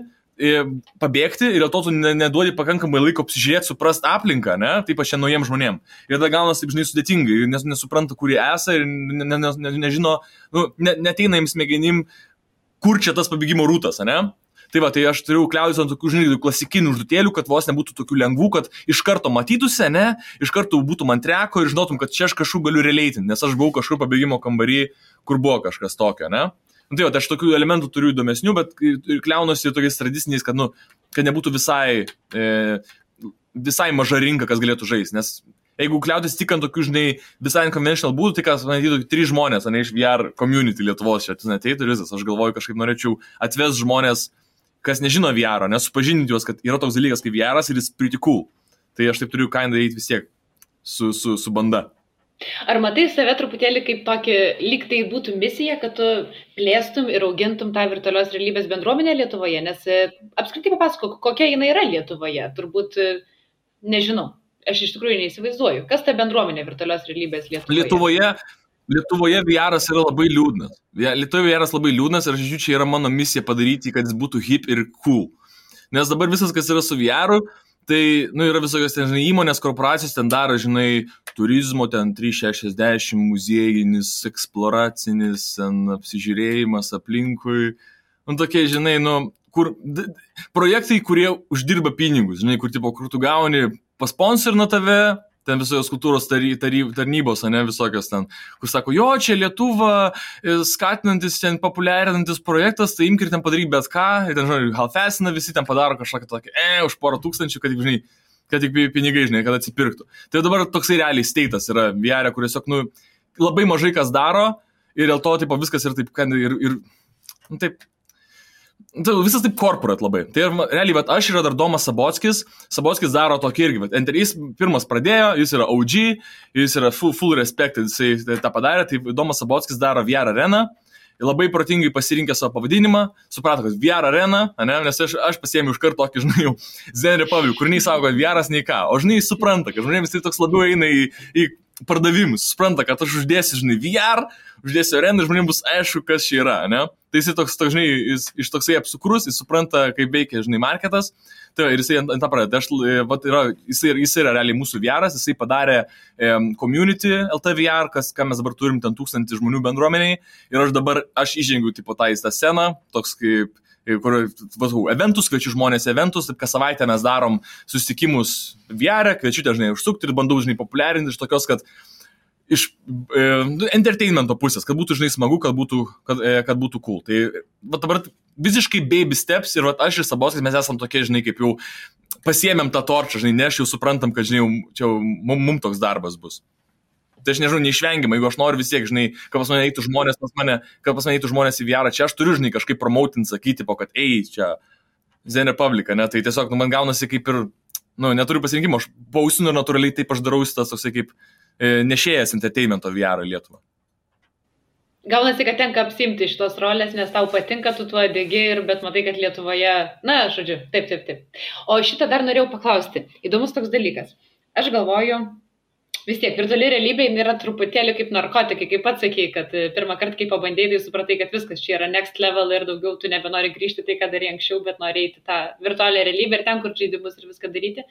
pabėgti ir dėl to tu neduodi pakankamai laiko apsižiūrėti, suprast aplinką, ne? Taip aš čia naujiem žmonėm. Ir tada gaunasi taip, žinai, sudėtingai, nes nesupranta, kur jie esą ir nežino, neteina jiems smegenim, kur čia tas pabėgimo rūtas, ne? Tai va, tai aš turiu kliautis ant tokių, žinai, klasikinių užduotėlių, kad vos nebūtų tokių lengvų, kad iš karto matytųsi, ne, iš karto būtų man treko ir žinotum, kad čia aš kažkur galiu releitinti, nes aš buvau kažkur pabėgimo kambarį, kur buvo kažkas tokio, ne. Tai va, tai aš tokių elementų turiu įdomesnių, bet kliaunuosi tokiais tradiciniais, kad, kad nebūtų visai maža rinka, kas galėtų žaisti, nes jeigu kliautis tik ant tokių, žinai, visai unconventional būdų, tai kas, matytų, 3 žmonės, ne, iš VR community Lietuvos čia ateitų ir visas, aš galvoju, kažkaip norėčiau atvest žmonės, kas nežino VR, nesupažinti juos, kad yra toks dalykas kaip VR ir jis pretty cool. Tai aš taip turiu kainą daryti vis tiek su banda. Ar matai save truputėlį kaip tokį, lyg tai būtų misija, kad tu plėstum ir augintum tą virtualios realybės bendruomenę Lietuvoje, nes apskritai papasakok, kokia jinai yra Lietuvoje, turbūt nežinau, aš iš tikrųjų neįsivaizduoju, kas ta bendruomenė virtualios realybės Lietuvoje? Lietuvoje VR-as yra labai liūdnas. Lietuvoje VR-as labai liūdnas ir aš žiūrėjau, čia yra mano misija padaryti, kad jis būtų hip ir cool. Nes dabar visas, kas yra su VR-u, tai, yra visokios ten, žinai, įmonės, korporacijos ten daro, žinai, turizmo, ten 360, muziejinis, eksploracinis, ten apsižiūrėjimas aplinkui. Tokie, žinai, kur projektai, kurie uždirba pinigus, žinai, kur tu gauni pasponsorina tave, ten visokios kultūros tarnybos, ne, visokios ten, kur sako, jo, čia Lietuva, skatinantis, ten populiarinantis projektas, tai imk ir ten padaryk bet ką, ir ten, žinai, halfesina, visi ten padaro kažką tokį, už porą tūkstančių, kad, žinai, kad tik pinigai, žinai, kad atsipirktų. Tai dabar toksai realiai status yra VR, kur tiesiog, labai mažai kas daro, ir dėl to, tipo, viskas yra taip, taip, visas taip corporate labai. Tai realiai, bet aš yra dar Domas Sabockis daro tokį irgi, jis pirmas pradėjo, jis yra OG, jis yra full respect, jisai tą padarė, tai Domas Sabockis daro VR areną, labai protingai pasirinkė savo pavadinimą, suprato, kad VR arena, ne, nes aš pasiėmiau iš karto tokį, žinai, Zen Republic, kur nei sako, kad VR'as nei ką, o žinai, supranta, kad žmonėms tai toks labiau eina į pardavimus, supranta, kad aš uždėsiu, žinai, VR, uždėsiu areną ir žmonėms bus aišku, kas čia yra, ne? Tai jisai toks, žinai, jis iš toksai apsukrus, jis supranta, kaip veikia, žinai, marketas, tai ir jisai ant tą pradeda. Jis yra realiai mūsų VR'as, jisai padarė community LT VR, ką mes dabar turim ten 1000 žmonių bendruomeniai, ir aš įžengiu tipo tą sceną, toks kaip kur eventus, kviečiu žmonės eventus, taip kas savaitę mes darom susitikimus VR, kviečiu dažnai užsukti ir bandau, žinai, populiarinti iš tokios, kad iš entertainmento pusės, kad būtų, žinai, smagu, kad būtų cool. Tai dabar visiškai baby steps ir aš ir Saboskas, mes esam tokie, žinai, kaip jau pasiėmėm tą torčą, žinai, ne, aš jau suprantam, kad, žinai, čia mums toks darbas bus. Tai aš nežinau, neišvengiamai, jeigu aš noriu vis tiek, žinai, kad pas mane eitų žmonės į VR, čia aš turiu, žinai, kažkaip promautinti, sakyti, kad čia Zen Republica, ne, tai tiesiog, man gaunasi kaip ir, neturiu pasirinkimo, aš pausinu ir natūraliai taip aš darau tas toksai kaip nešėjas entertainmento VR į Lietuvą. Gaunasi, kad tenka apsimti šitos rolės, nes tau patinka, tu tuo degi, bet matai, kad Lietuvoje, žodžiu, taip. O šitą dar norėjau paklausti. Įdomus toks dalykas. Aš galvoju, vis tiek, virtuali realybė yra truputėlį kaip narkotikai, kaip pats sakei, kad pirmą kartą, kai pabandėjai, tai supratai, kad viskas čia yra next level ir daugiau tu nebenori grįžti tai, ką darė anksčiau, bet nori eiti tą virtualią realybę ir ten, kur žaidimus ir viską daryti.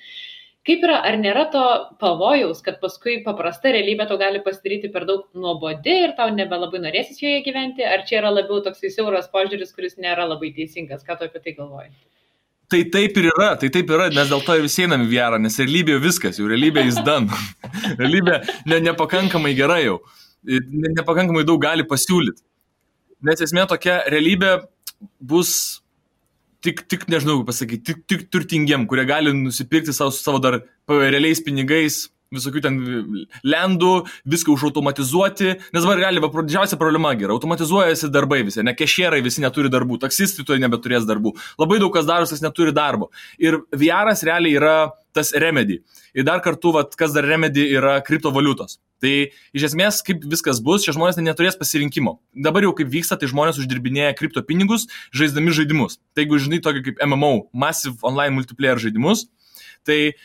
Kaip yra, ar nėra to pavojaus, kad paskui paprasta realybė tau gali pasidaryti per daug nuobodi ir tau nebelabai norėsis joje gyventi, ar čia yra labiau toksai siauras požiūris, kuris nėra labai teisingas, ką tu apie tai galvoji? Tai taip ir yra, nes dėl to ir visi einam į VR, nes realybė viskas, jau realybė is done. Realybė nepakankamai gerai jau, nepakankamai daug gali pasiūlyti. Nes esmė tokia realybė bus tik nežinau pasakyti, tik turtingiem, kurie gali nusipirkti savo dar realiais pinigais, visokių ten lendų, viską užautomatizuoti, nes dabar gali, didžiausia problema yra, automatizuojasi darbai visi, ne kešierai visi neturi darbų, taksistai to nebeturės darbų, labai daug kas daros, kas neturi darbo. Ir VR'as realiai yra tas remedy. Ir dar kartu, kas dar remedy yra kriptovaliutos. Tai iš esmės, kaip viskas bus, šie žmonės neturės pasirinkimo. Dabar jau kaip vyksta, tai žmonės uždirbinėja kripto pinigus, žaisdami žaidimus. Tai jeigu žinai tokį kaip MMO, Massive Online Multiplayer žaidimus, tai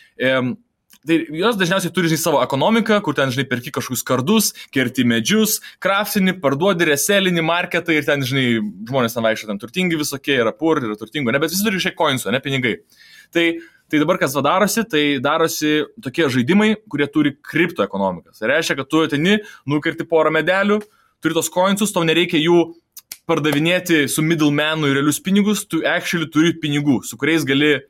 jos dažniausiai turi, žinai, savo ekonomiką, kur ten, žinai, perki kažkokius kardus, kerti medžius, kraftini, parduodi, reselinį marketą ir ten, žinai, žmonės ten vaikščia, ten turtingi visokie, yra pur, yra turtingo, bet visi turi šiek coinsų, ne pinigai. Tai dabar kas darosi, tai darosi tokie žaidimai, kurie turi kriptoekonomikas. Tai reiškia, kad tu ateni, nukerti porą medelių, turi tos coinsus, tau nereikia jų pardavinėti su middlemanu į realius pinigus, tu actually turi pinigų, su kuriais gali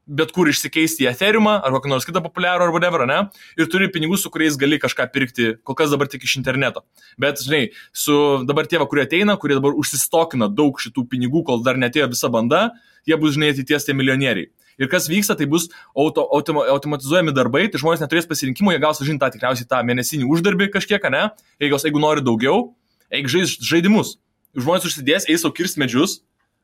bet kur išsikeisti į Ethereumą ar kokį nors kitą populiarų ar whatever, ne? Ir turi pinigų, su kuriais gali kažką pirkti, kol kas dabar tik iš interneto. Bet, žinai, su dabar tie, kurie ateina, kurie dabar užsistokina daug šitų pinigų, kol dar netėjo visa banda, jie bus, žinai, ateities tie milijonieriai. Ir kas vyksta, tai bus automatizuojami darbai, tai žmonės neturės pasirinkimo, jie gaus, žinai, tikriausiai tą mėnesinį uždarbį kažkiek, ne? Jeigu nori daugiau, eik žaidimus. Žmonės užsidės, eis sau kirst medžius,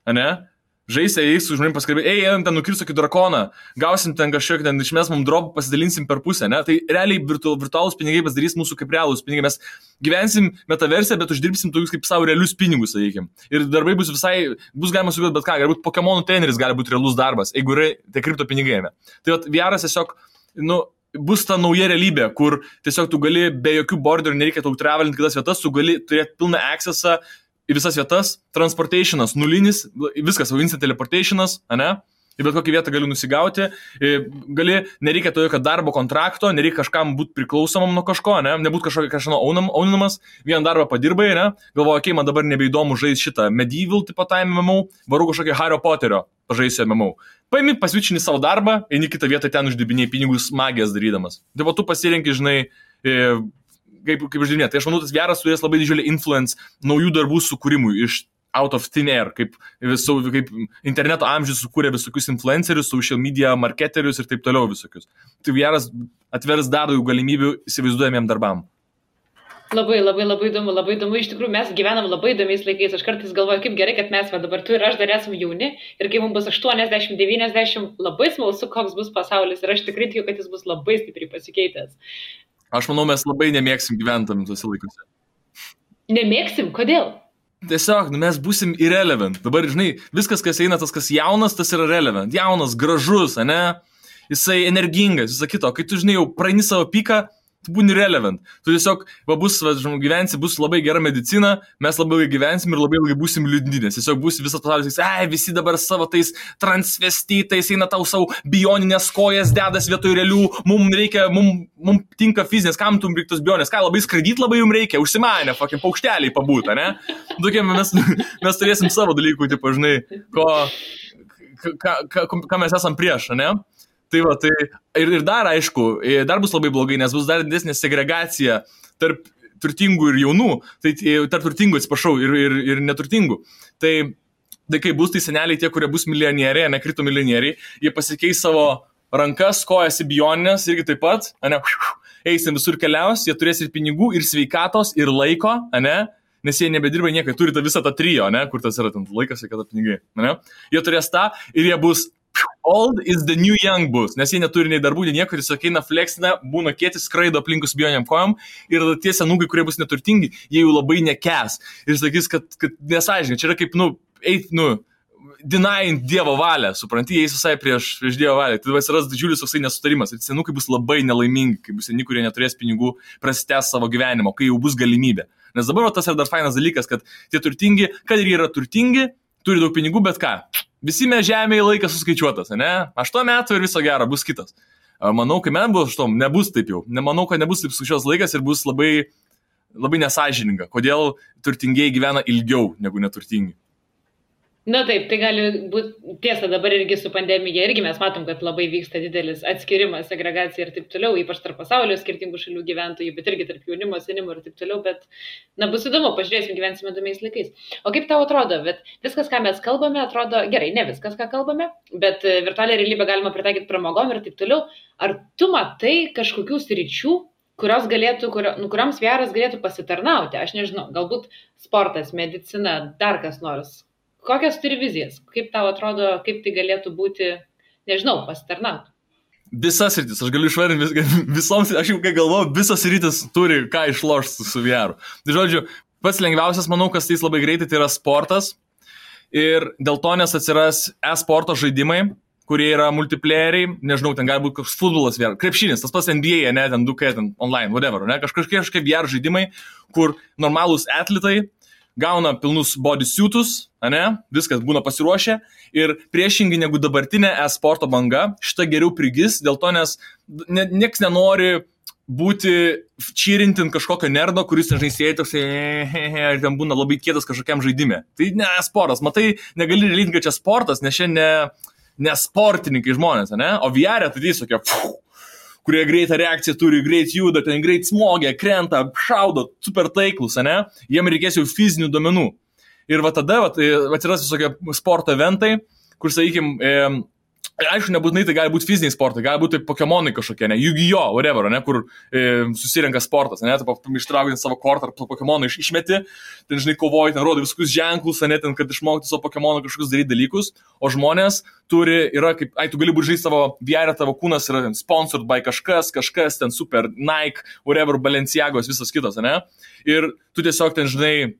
ne? Žaisi, eis su žmonėm paskalbėti, einam ten nukirst tokį drakoną, gausim ten kažkiek, ten išmes mums dropą, pasidalinsim per pusę, ne? Tai realiai virtualūs pinigai pasidarys mūsų kaip realūs pinigai, mes gyvensim metaverse, bet uždirbsim tokius kaip savo realius pinigus, sakykim. Ir darbai bus galima sugalvoti bet ką, galbūt Pokemonų treneris gali būti realus darbas, jeigu yra tai kripto pinigai. Tai VR'as tiesiog, bus ta nauja realybė, kur tiesiog tu gali be jokių borderių, nereikia tau travelinti kitas vietas, tu gali turėti pilną accessą į visas vietas, transportationas nulinis, viskas, instant teleportationas, ne? Į bet kokią vietą gali nusigauti, nereikia to jokio darbo kontrakto, nereikia kažkam būti priklausomam nuo kažko, ne? Nebūt kažkano auninamas, vieną darbą padirbai, ne? Galvoju, okei, man dabar nebeįdomu žaisti šitą medieval tipo time MMO, varu kažkokį Harry Potterio pažaisiu MMO. Paimi, pasvičini savo darbą, eini kitą vietą ten uždirbinėjai pinigus magijas darydamas. Tai tu pasirenki, žinai, kaip uždirbinė. Tai aš manau, tas VR'as turės labai didžiulį influence naujų darbų sukūrimui iš out of thin air, kaip interneto amžius sukūrė visokius influencerius, social media marketerius ir taip toliau visokius. Tai VR'as atvers dar daugiau galimybių įsivaizduojamiem darbam. Labai įdomu. Iš tikrųjų, mes gyvenam labai įdomiais laikais. Aš kartais galvoju, kaip gerai, kad mes dabar tu ir aš dar esame jauni ir kai mums bus 80-90, labai smalsu, koks bus pasaulis ir aš tikrai tikiu, kad jis bus labai stipriai pasikeitęs. Aš manau, mes labai nemėgsim gyventami tuose laikuose. Nemėgsim? Kodėl? Tiesiog, mes būsim irrelevant. Dabar, žinai, viskas, kas eina, tas, kas jaunas, tas yra relevant. Jaunas, gražus, ne? Jisai energingas, visą kito. Kai tu, žinai, jau praeini savo piką, tu būni relevant. Tu tiesiog, gyvensi, bus labai gera medicina, mes labai ilgai gyvensim ir labai ilgai būsim liūdni, nes tiesiog bus visas pasaulis, visi dabar savo tais transvestitais eina tau savo bioninės kojas, dedas vietoj realių, mums tinka fizinės, kam tu reikia tos bionės, ką labai skraidyti labai jums reikia, užsimanę, paukšteliai pabūta, ne? Tokie mes turėsim savo dalykų, tipo, žinai, ką mes esam prieš, ne? Tai va, tai ir dar aišku, dar bus labai blogai, nes bus dar didesnė segregacija tarp turtingų ir jaunų, tai tarp turtingų, atsiprašau, ir neturtingų. Tai kai bus tai seneliai tie, kurie bus milijonieriai, nekrito milijonieriai, jie pasikeis savo rankas, kojas į bioninės, irgi taip pat, eisim visur keliaus, jie turės ir pinigų, ir sveikatos, ir laiko, nes jie nebedirba niekai, turi visą tą trijo, kur tas yra ten laikas, sveikata, pinigai, jie turės tą ir jie bus old is the new young bus, nes jie neturi nei darbų, nei nieko, tiesiog eina fleksina, būna kietis, skraido aplinkus bioniam kojom ir tie senūgai, kurie bus neturtingi, jie jau labai nekęs ir sakys, kad nesąžininkai, čia yra kaip, denying Dievo valią, supranti, jie visai prieš Dievo valią, tai atsiras didžiulis toksai nesutarimas ir senūkai bus labai nelaimingi, kai bus seni, kurie neturės pinigų, prasitęs savo gyvenimo, kai jau bus galimybė. Nes dabar tas yra dar fainas dalykas, kad tie turtingi, kad ir yra turtingi, turi daug pinigų, bet ką? Visi mes žemėje laikas suskaičiuotas, ne? 8 metų ir viso gero, bus kitas. Manau, kai man bus 8, nebus taip jau. Nemanau, kad nebus taip skaičiuotas laikas ir bus labai, labai nesąžininga. Kodėl turtingieji gyvena ilgiau negu neturtingi? Na taip, tai gali būti tiesa, dabar irgi su pandemija, irgi mes matom, kad labai vyksta didelis atskirimas, segregacija ir taip toliau, ypač tarp pasaulio skirtingų šalių gyventojų, bet irgi tarp jaunimo, senimo ir taip toliau, bet, bus įdomu, pažiūrėsim, gyvensime įdomiais laikais. O kaip tau atrodo, bet viskas, ką mes kalbame, atrodo, gerai, ne viskas, ką kalbame, bet virtualią realybę galima pritaikyti pramogom ir taip toliau. Ar tu matai kažkokių sričių, kurioms VR'as galėtų pasitarnauti? Aš nežinau, galbūt sportas, medicina, dar kas nors. Kokias turi vizijas? Kaip tau atrodo, kaip tai galėtų būti, nežinau, pasitarnauti? Visas rytis, aš galiu išvardinti visoms, aš jau kai galvoju, visas rytis turi ką išlošti su VR. Tai žodžiu, pats lengviausias, manau, kas tai labai greitai, tai yra sportas. Ir dėl to nes atsiras e-sporto žaidimai, kurie yra multiplayeriai, nežinau, ten gali būti koks futbolas VR, krepšinis, tas pats NBA, ne, ten 2K, ten online, whatever, ne, kažkokie VR žaidimai, kur normalūs atletai gauna pilnus bodysuitus, viskas būna pasiruošę ir priešingai negu dabartinė e-sporto banga, šita geriau prigis, dėl to, nes nieks nenori būti čyrintin kažkokio nerdo, kuris, nežinai, sėdi toks ir ten būna labai kietas kažkokiam žaidime. Tai ne sportas, matai, negali relinti, kad čia sportas, nes čia ne sportininkai žmonės, o VR tai tiesiog kurie greitą reakciją turi, greit juda, ten greit smogia, krenta, šaudo, super taiklus, jiem reikės jau fizinių duomenų. Ir va tada atsiras visokie sporto eventai, kur, sakykime, aišku, nebūtinai tai gali būti fiziniai sportai, gali būti Pokemonai kažkokie, Yu-Gi-Oh, whatever, kur susirenka sportas, ištraukti savo kortą ar Pokemoną išmeti, ten, žinai, kovoji, ten rodo visokius ženklus, ten, kad išmokti savo Pokemoną kažkokius daryti dalykus, o žmonės yra kaip, tu gali būti žaisti savo VR, tavo kūnas yra sponsored by kažkas, ten super, Nike, whatever, Balenciagos, visas kitas, ir tu tiesiog ten, žinai,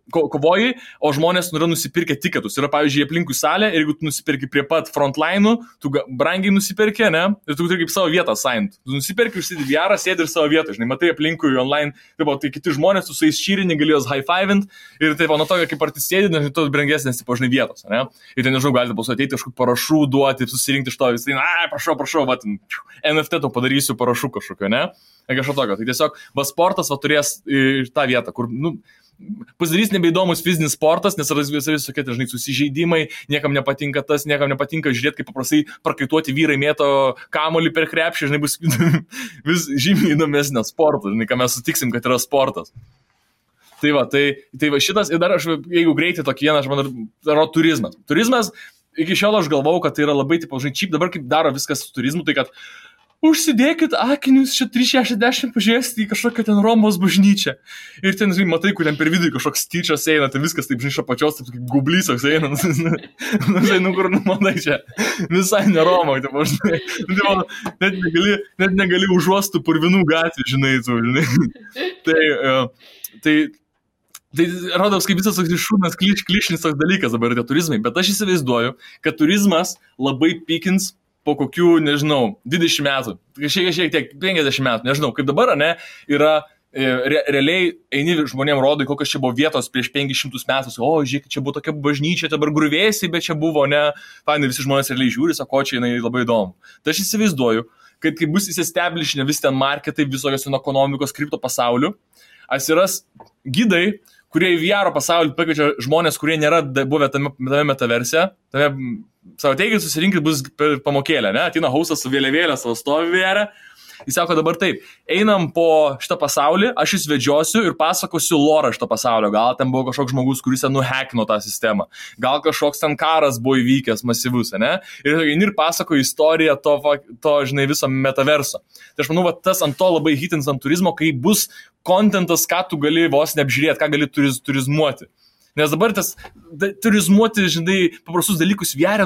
kovoji, o žmonės yra nusipirkę tiketus. Yra, pavyzdžiui, aplinkui salę ir jeigu tu nusipirki prie pat frontline'ų, tu brangiai nusipirki, ir tu turi kaip savo vietą signed. Tu nusipirki, užsidedi VR, sėdi ir savo vietą, žinai, matai aplinkui online, tai kiti žmonės, tu su jais šyrini, gali jos high-fivint ir taip, nuo to, kaip ar tu sėdi, tu brangesnės, tipo, žinai, vietos, Ir ten, nežinau, galite pasu ateiti kažkokį parašų duoti, susirinkti iš to, visai, prašau, NFT to padarysiu parašų kažkokio, kažko tokio. Tai tiesiog, sportas turės tą vietą, kur, pasidarys nebeįdomus fizinis sportas, nes yra visokie, žinai, susižeidimai, niekam nepatinka tas, niekam nepatinka žiūrėti, kaip paprastai prakaituoti vyrai mėto kamuolį per krepšį, žinai, bus vis žymiai įdomesnio sporto, žinai, ką mes sutiksim, kad yra sportas. Tai va šitas, ir dar aš, jeigu greitai tokį vieną, aš manau, yra turizmas. Turizmas, iki šiol aš galvau, kad tai yra labai, tipo, žinai, čip, dabar kaip daro viskas su turizmu, tai kad užsidėkit akinius, čia 360 pažiūrėsite į kažkokią ten Romos bažnyčią. Ir ten, žinai, matai, kur ten per vidurį kažkoks tyčias eina, ten viskas taip, žinai, iš apačios, taip kaip gublysas eina. Žinai, kur, matai, čia visai ne Roma, taip, žinai. Net negali užuostų purvinų gatvį, žinai, tu, žinai. Tai rodos, kaip visas toks šūnas klišinis toks dalykas dabar yra turizmai, bet aš įsivaizduoju, kad turizmas labai pikins po kokių, nežinau, 20 metų, šiek tiek 50 metų, nežinau, kaip dabar, ne, yra realiai eini žmonėm rodai, kokios čia buvo vietos prieš 500 metų, o, žiūrėk, čia buvo tokia bažnyčia, dabar gruvėsiai, bet čia buvo, ne, fainai, visi žmonės realiai žiūri, sako, čia jinai labai įdomu. Tai aš įsivaizduoju, kad kai bus įsiestablishinę visi ten marketai, visokios ekonomikos, kripto pasauliu, atsiras gidai, kurie į VR pasaulį pakviečia žmonės, kurie nėra buvę tame metaverse, savo teigit, susirinkit bus per pamokėlę, ne, ateina hausas su vėliavėlė, savo stovi VR. Jis sako dabar taip, einam po šitą pasaulį, aš jūs vedžiosiu ir pasakosiu lorą šitą pasaulio. Gal ten buvo kažkoks žmogus, kuris ten nuhekino tą sistemą. Gal kažkoks ten karas buvo įvykęs masyvus, ne? Ir pasakoju istoriją to, žinai, viso metaverso. Tai aš manau, va, tas ant to labai hitins ant turizmo, kai bus kontentas, ką tu gali vos neapžiūrėti, ką gali turizmuoti. Nes dabar tas turizmuoti, žinai, paprastus dalykus vėrė,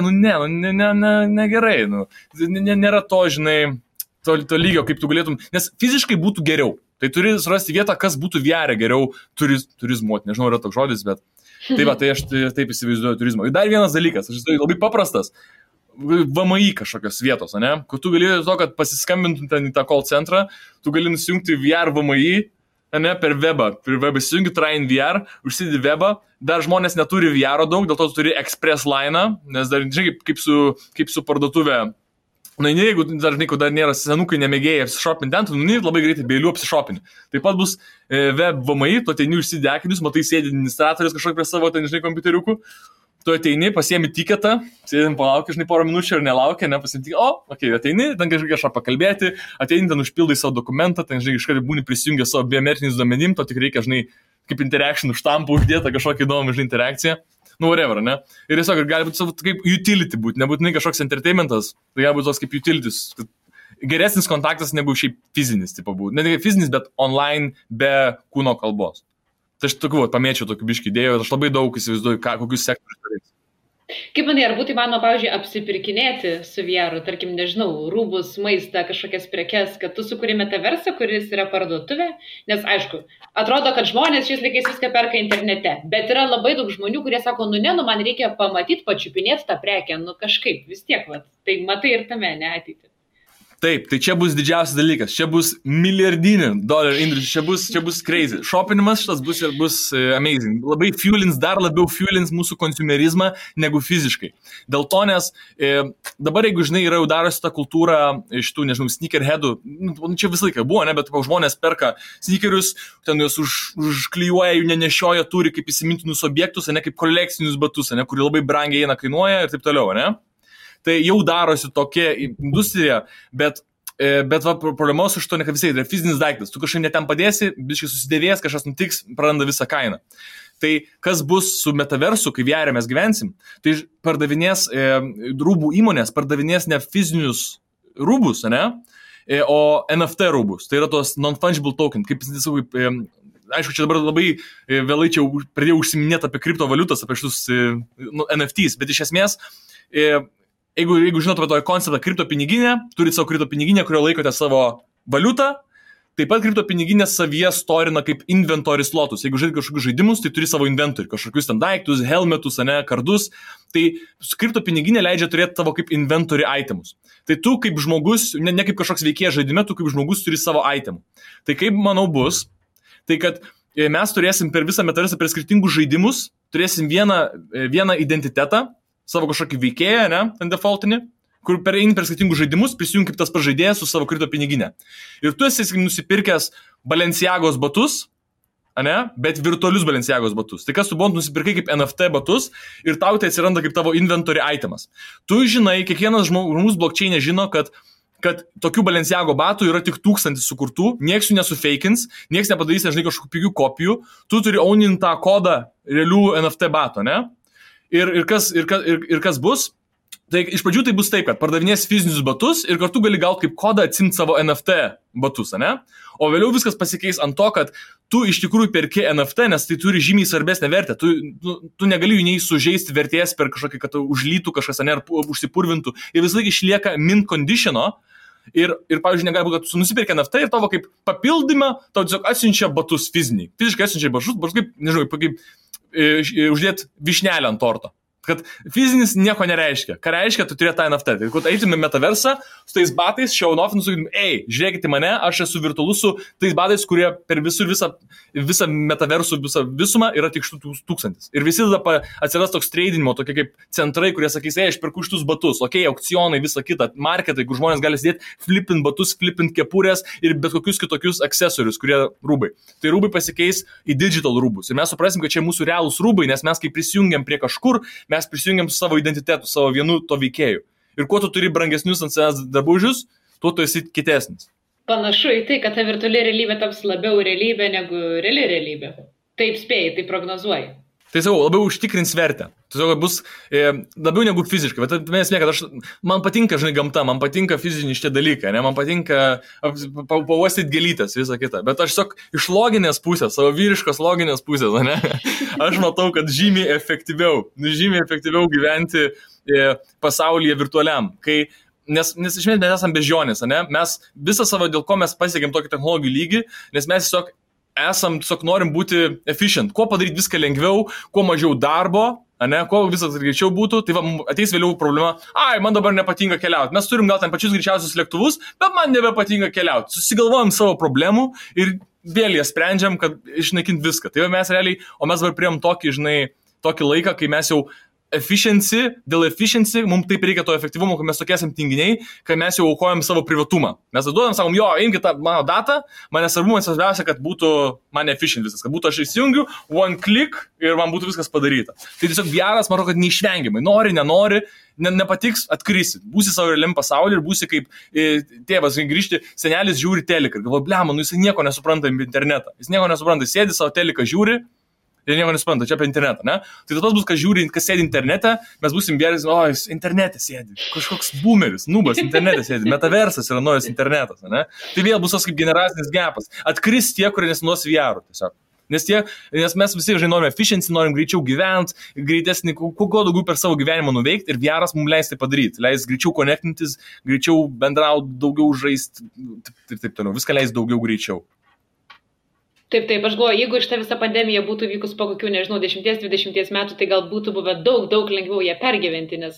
negerai. Nėra to, žinai, to lygio, kaip tu galėtum, nes fiziškai būtų geriau. Tai turi surasti vietą, kas būtų vėrė geriau turizmuoti. Nežinau, yra toks žodis, bet tai aš taip įsivaizduoju turizmą. Ir dar vienas dalykas, aš įsivaizduoju labai paprastas, VMI kažkokios vietos, ne? Kur tu gali to, kad pasiskambintum ten į tą call centrą, tu gali nusijungti VR VMI, ne, per webą. Per webą įsijungi Train VR, užsidedi webą, dar žmonės neturi VR daug, dėl to tu turi Express Line, nes dar, žinai, kaip su parduotuvė. Na, jeigu dar nėra senukai nemėgėjai apsišopinti ten, tu labai greitai beiliu apsišopinti. Taip pat bus web VMI, tu ateini užsidedi akinius, matai sėdi administratorius kažkokį prie savo, ten, žinai, kompiuteriukų, tu ateini, pasiemi tiketą, sėdim palaukia, žinai, porą minučių ir nelaukia, nepasiemi tiketą, ateini, ten kažką pakalbėti, ateini, ten užpildai savo dokumentą, ten, žinai, kažką būni prisijungę savo biometriniais duomenim, to tik reikia, žinai, kaip interaction štampų uždėta, kažkokį įdomų, žinai, interakciją. Whatever, ne? Ir tiesiog gali būti kaip utility būti, nebūtinai kažkoks entertainmentas, tai gali būti toks kaip utilities. Geresnis kontaktas negu šiaip fizinis, tipo būtų. Ne tik fizinis, bet online be kūno kalbos. Tai aš tokiu, pamėčiau tokių biškį idėjų, aš labai daug įsivaizduoju, kokius sektorius turės. Kaip manai, ar būtų įmanoma, pavyzdžiui, apsipirkinėti su VR, tarkim, nežinau, rūbus, maistą, kažkokias prekes, kad tu sukuri metaversą, kuris yra parduotuvė, nes aišku, atrodo, kad žmonės šiais laikais viską perka internete, bet yra labai daug žmonių, kurie sako, man reikia pamatyti, pačiupinėti tą prekę, kažkaip, vis tiek, tai matai ir tame, ne ateitį. Taip, tai čia bus didžiausias dalykas, čia bus milijardinį dolerių industrijų, čia bus crazy. Šopinimas šitas bus amazing. Labai dar labiau fuelins mūsų konsumerizmą negu fiziškai. Dėl to, nes dabar, jeigu, žinai, yra jau darosi ta kultūra šitų, nežinau, sneakerheadų, čia visą laiką buvo, ne, bet žmonės perka sneakerius, ten juos užklijuoja, jų nenešioja, turi kaip įsimintinus objektus, ne kaip kolekcinius batus, ne, kurie labai brangiai kainuoja ir taip toliau, ne. Tai jau darosi tokia industrija, bet problema su šito, ne kad visai, tai yra fizinis daiktas. Tu kažkaip netem padėsi, biškai susidėvės, kažkas nutiks, praranda visą kainą. Tai kas bus su metaversu, kai VR mes gyvensim, tai pardavinės rūbų įmonės, pardavinės ne fizinius rūbus, ne, o NFT rūbus. Tai yra tos non-fungible token, kaip aišku, čia dabar labai vėlai čia pradėjau užsiminėti apie kriptovaliutas, apie šitus NFTs, bet iš esmės jeigu žinot apie tokį konceptą kriptopiniginę, turit savo kriptopiniginę, kurio laikote savo valiutą, taip pat kriptopiniginė savyje storina kaip inventory slotus. Jeigu žaidži kažkokius žaidimus, tai turi savo inventory, kažkokius ten daiktus, helmetus, kardus. Tai kriptopiniginė leidžia turėti tavo kaip inventory itemus. Tai tu kaip žmogus, ne kaip kažkoks veikėjas žaidime, tu kaip žmogus turi savo itemų. Tai kaip, manau, bus, tai kad mes turėsim per visą metaversą, per skirtingus žaidimus, turėsim vieną identitetą, savo kažkokį veikėją, ne, ten defaultinį, kur per skirtingus žaidimus prisijungi kaip tas pažaidėjas su savo kripto piniginė. Ir tu esi nusipirkęs Balenciagos batus, ne, bet virtualius Balenciagos batus. Tai kas tu buvot nusipirkai kaip NFT batus ir tau tai atsiranda kaip tavo inventory itemas. Tu žinai, kiekvienas žmogus blockchain'e žino, kad tokių Balenciago batų yra tik 1000 sukurtų, nieks jų nesufeikins, nieks nepadarys, nežinai, kažkokių pigių kopijų, tu turi ownint tą kodą realių NFT bato, ne? Ir kas bus? Tai iš pradžių tai bus taip, kad pardavinės fizinius batus ir kartu gali gauti kaip kodą atsimti savo NFT batus, ne? O vėliau viskas pasikeis ant to, kad tu iš tikrųjų perki NFT, nes tai turi žymiai svarbesnę vertę. Tu negali jų nei sužeisti vertės per kažkokį, kad užlytų kažkas, ne, ar užsipurvintų. Ir vis laik išlieka mint conditiono. Ir pavyzdžiui, negali būti, kad tu nusipirki NFT ir tavo kaip papildymą, tau tiesiog atsiunčia batus fiziniai. Fiziškai atsiunčia batus kaip, nežinau, kaip uždėti višnelę ant torto. Kad fizinis nieko nereiškia. Ką reiškia, tu turėt tą NFT. Tai kad eitumėm metaversą, su tais batais, show off, nusakytum, žiūrėkite mane, aš esu virtualus su tais batais, kurie per visą metaversų, visą visumą yra tik 1000. Ir visi tada atsiras toks tradinimo, tokie kaip centrai, kurie sakys, aš perku šitus batus, aukcionai, visą kitą, marketai, kur žmonės gali sėdėti, flipint batus, flipint kepurės ir bet kokius kitokius akcesorius, kurie rūbai. Tai rūbai pasikeis į digital rūbus. Ir mes suprasim, kad čia mūsų realūs rūbai, nes mes kai prisijungiam prie kažkur, mes prisijungiam su savo identitetu, savo vienu to veikėju. Ir kuo tu turi brangesnius ant savęs drabužius, tuo tu esi kitesnis. Panašu į tai, kad ta virtuali realybė taps labiau realybė negu reali realybė. Taip spėjai, tai prognozuoji. Tai sakau, labiau užtikrins vertę. Tiesiog bus labiau negu fiziškai. Bet esmė, kad man patinka, gamta, man patinka fiziniai šitie dalykai, ne? Man patinka pavostyti gėlytės, visą kitą. Bet aš tiesiog iš loginės pusės, savo vyriškos loginės pusės, ne? Aš matau, kad žymiai efektyviau gyventi pasaulyje virtualiam. Nes iš esmės mes esame bežionės, ne? Mes visą savo, dėl ko mes pasiekėm tokį technologijų lygį, nes mes tiesiog norim būti efficient, kuo padaryti viską lengviau, kuo mažiau darbo, kuo visas greičiau būtų, tai ateis vėliau problema, man dabar nepatinka keliauti, mes turim gal ten pačius greičiausius lėktuvus, bet man nebepatinka keliauti, susigalvojam savo problemų ir vėl jas sprendžiam, kad išnaikinti viską, tai mes realiai, o mes dabar priėm tokį laiką, kai mes jau dėl efficiency, mums taip reikia to efektyvumo, kad mes tokie esam tinginiai, kad mes jau aukojam savo privatumą. Mes duodam, sakom, imkite tą mano datą, man nesvarbu, man svarbiausia, kad būtų man efficient viskas, kad būtų aš įsijungiu, one click ir man būtų viskas padaryta. Tai tiesiog VR'as, manau, kad neišvengiamai, nenori, nepatiks, atkrisi, būsi savo realiam pasaulyje ir būsi kaip tėvas, grįžti, senelis žiūri teliką ir galvoja, jis nieko nesupranta apie internetą, jis nieko nesupranta, sėdi savo teliką, žiūri, ir nieko nesupranta, čia apie internetą, ne? Tai tas bus, kas žiūri, kas sėdi internete, mes būsim vėris, jis internete sėdi, kažkoks boomeris, nubas internete sėdi, metaversas yra naujas internetas, ne? Tai vėl bus tas kaip generacinis gapas, atkris tie, kurie nesinuos VR tiesiog. Nes mes visi norime efficiency, norim greičiau gyventi, greitesnį, kuo daugiau per savo gyvenimą nuveikti ir VR'as mums leis tai padaryti, leis greičiau konektintis, greičiau bendrauti, daugiau žaisti ir taip toliau, viską leis daugiau greičiau. Taip, aš galvoju, jeigu šitą visą pandemiją būtų vykus po kokių, 10-20 metų, tai gal būtų buvę daug lengviau ją pergyventi, nes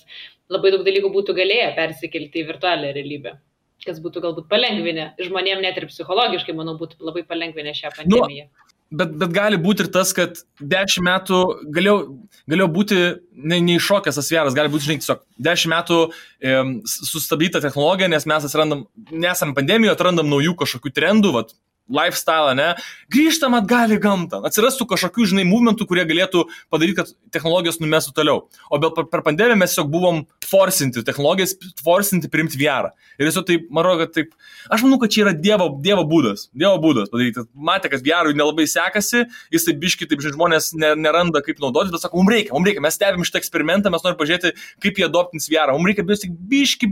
labai daug dalykų būtų galėję persikelti į virtualią realybę, kas būtų galbūt palengvinę. Žmonėm net ir psichologiškai, manau, būtų labai palengvinę šią pandemiją. Bet gali būti ir tas, kad 10 metų galėjo būti neiššokęs tas VR'as, gali būti, tiesiog 10 metų sustabdyta technologija, nes mes nesam pandemijoje, atrandam naujų kažkokių trendų, lifestyle, grįžtam atgal į gamtą, atsirastų kažkokių, movementų, kurie galėtų padaryti, kad technologijos numestų toliau. O per pandemiją mes tiesiog buvom forcinti technologijas, forcinti priimti VR. Ir tiesiog taip, aš manau, kad čia yra dievo būdas padaryti. Matė, kad VR nelabai sekasi, jis taip biški, žmonės neranda kaip naudotis, bet sako, mums reikia, mes stebim šitą eksperimentą, mes norim pažiūrėti, kaip jie adoptins VR. Mums reikia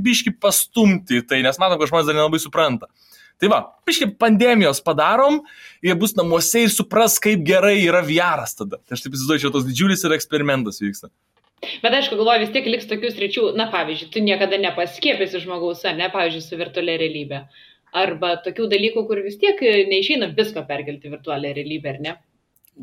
biški pastumti tai, nes matom, kad žmonės dar nelabai supranta. Tai biškai pandemijos padarom, jie bus namuose ir supras, kaip gerai yra VR'as tada. Tai aš taip įsivaizduoju, čia tos didžiulis ir eksperimentas vyksta. Bet aišku, galvoju, vis tiek liks tokių sričių, pavyzdžiui, tu niekada nepaskiepėsi žmogaus, pavyzdžiui, su virtualia realybė. Arba tokių dalykų, kur vis tiek neišeina visko perkelti virtualią realybę, ar ne?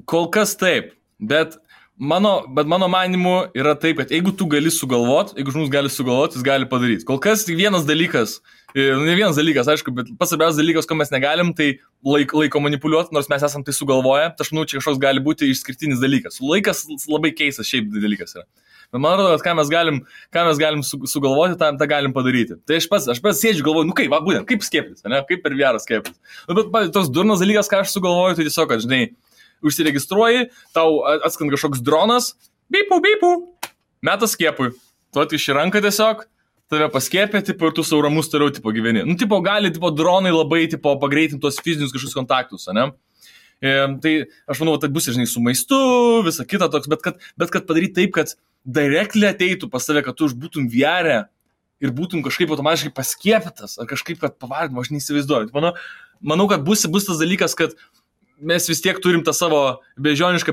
Kol kas taip, bet mano manimu yra taip, kad jeigu tu gali sugalvoti, jeigu žmogus gali sugalvoti, jis gali padaryti. Kol kas tik vienas dalykas, aišku, bet pats svarbiausias dalykas, ko mes negalim, tai laiko manipuliuoti, nors mes esam tai sugalvoję, tai aš manau, čia kažkoks gali būti išskirtinis dalykas. Laikas labai keistas šiaip dalykas yra. Bet man atrodo, kad ką mes galim sugalvoti, tą galim padaryti. Tai aš pats sėdžiu, galvoju, būtent, kaip skieptis, kaip per VR skieptis. Bet toks durnas dalykas, ką aš sugalvoju, tai tiesiog, kad, užsiregistruoji, tau atskand kažkoks dronas, bipu, metas skiepui. Tu iš ranką tiesiog, tave paskiepė, ir tu savo ramus toliau, gyveni. Gali, dronai labai, pagreitinti tuos fizinius kažkokius kontaktus, ne? Tai aš manau, tai bus, su maistu, visa kita toks, bet kad padaryti taip, kad directly ateitų pas tave, kad tu būtum VR ir būtum kažkaip automatiškai paskiepytas, ar kažkaip, kad pavardim, aš neįsivaizduoju. Manau, kad bus tas dalykas, kad mes vis tiek turim tą savo beždžionišką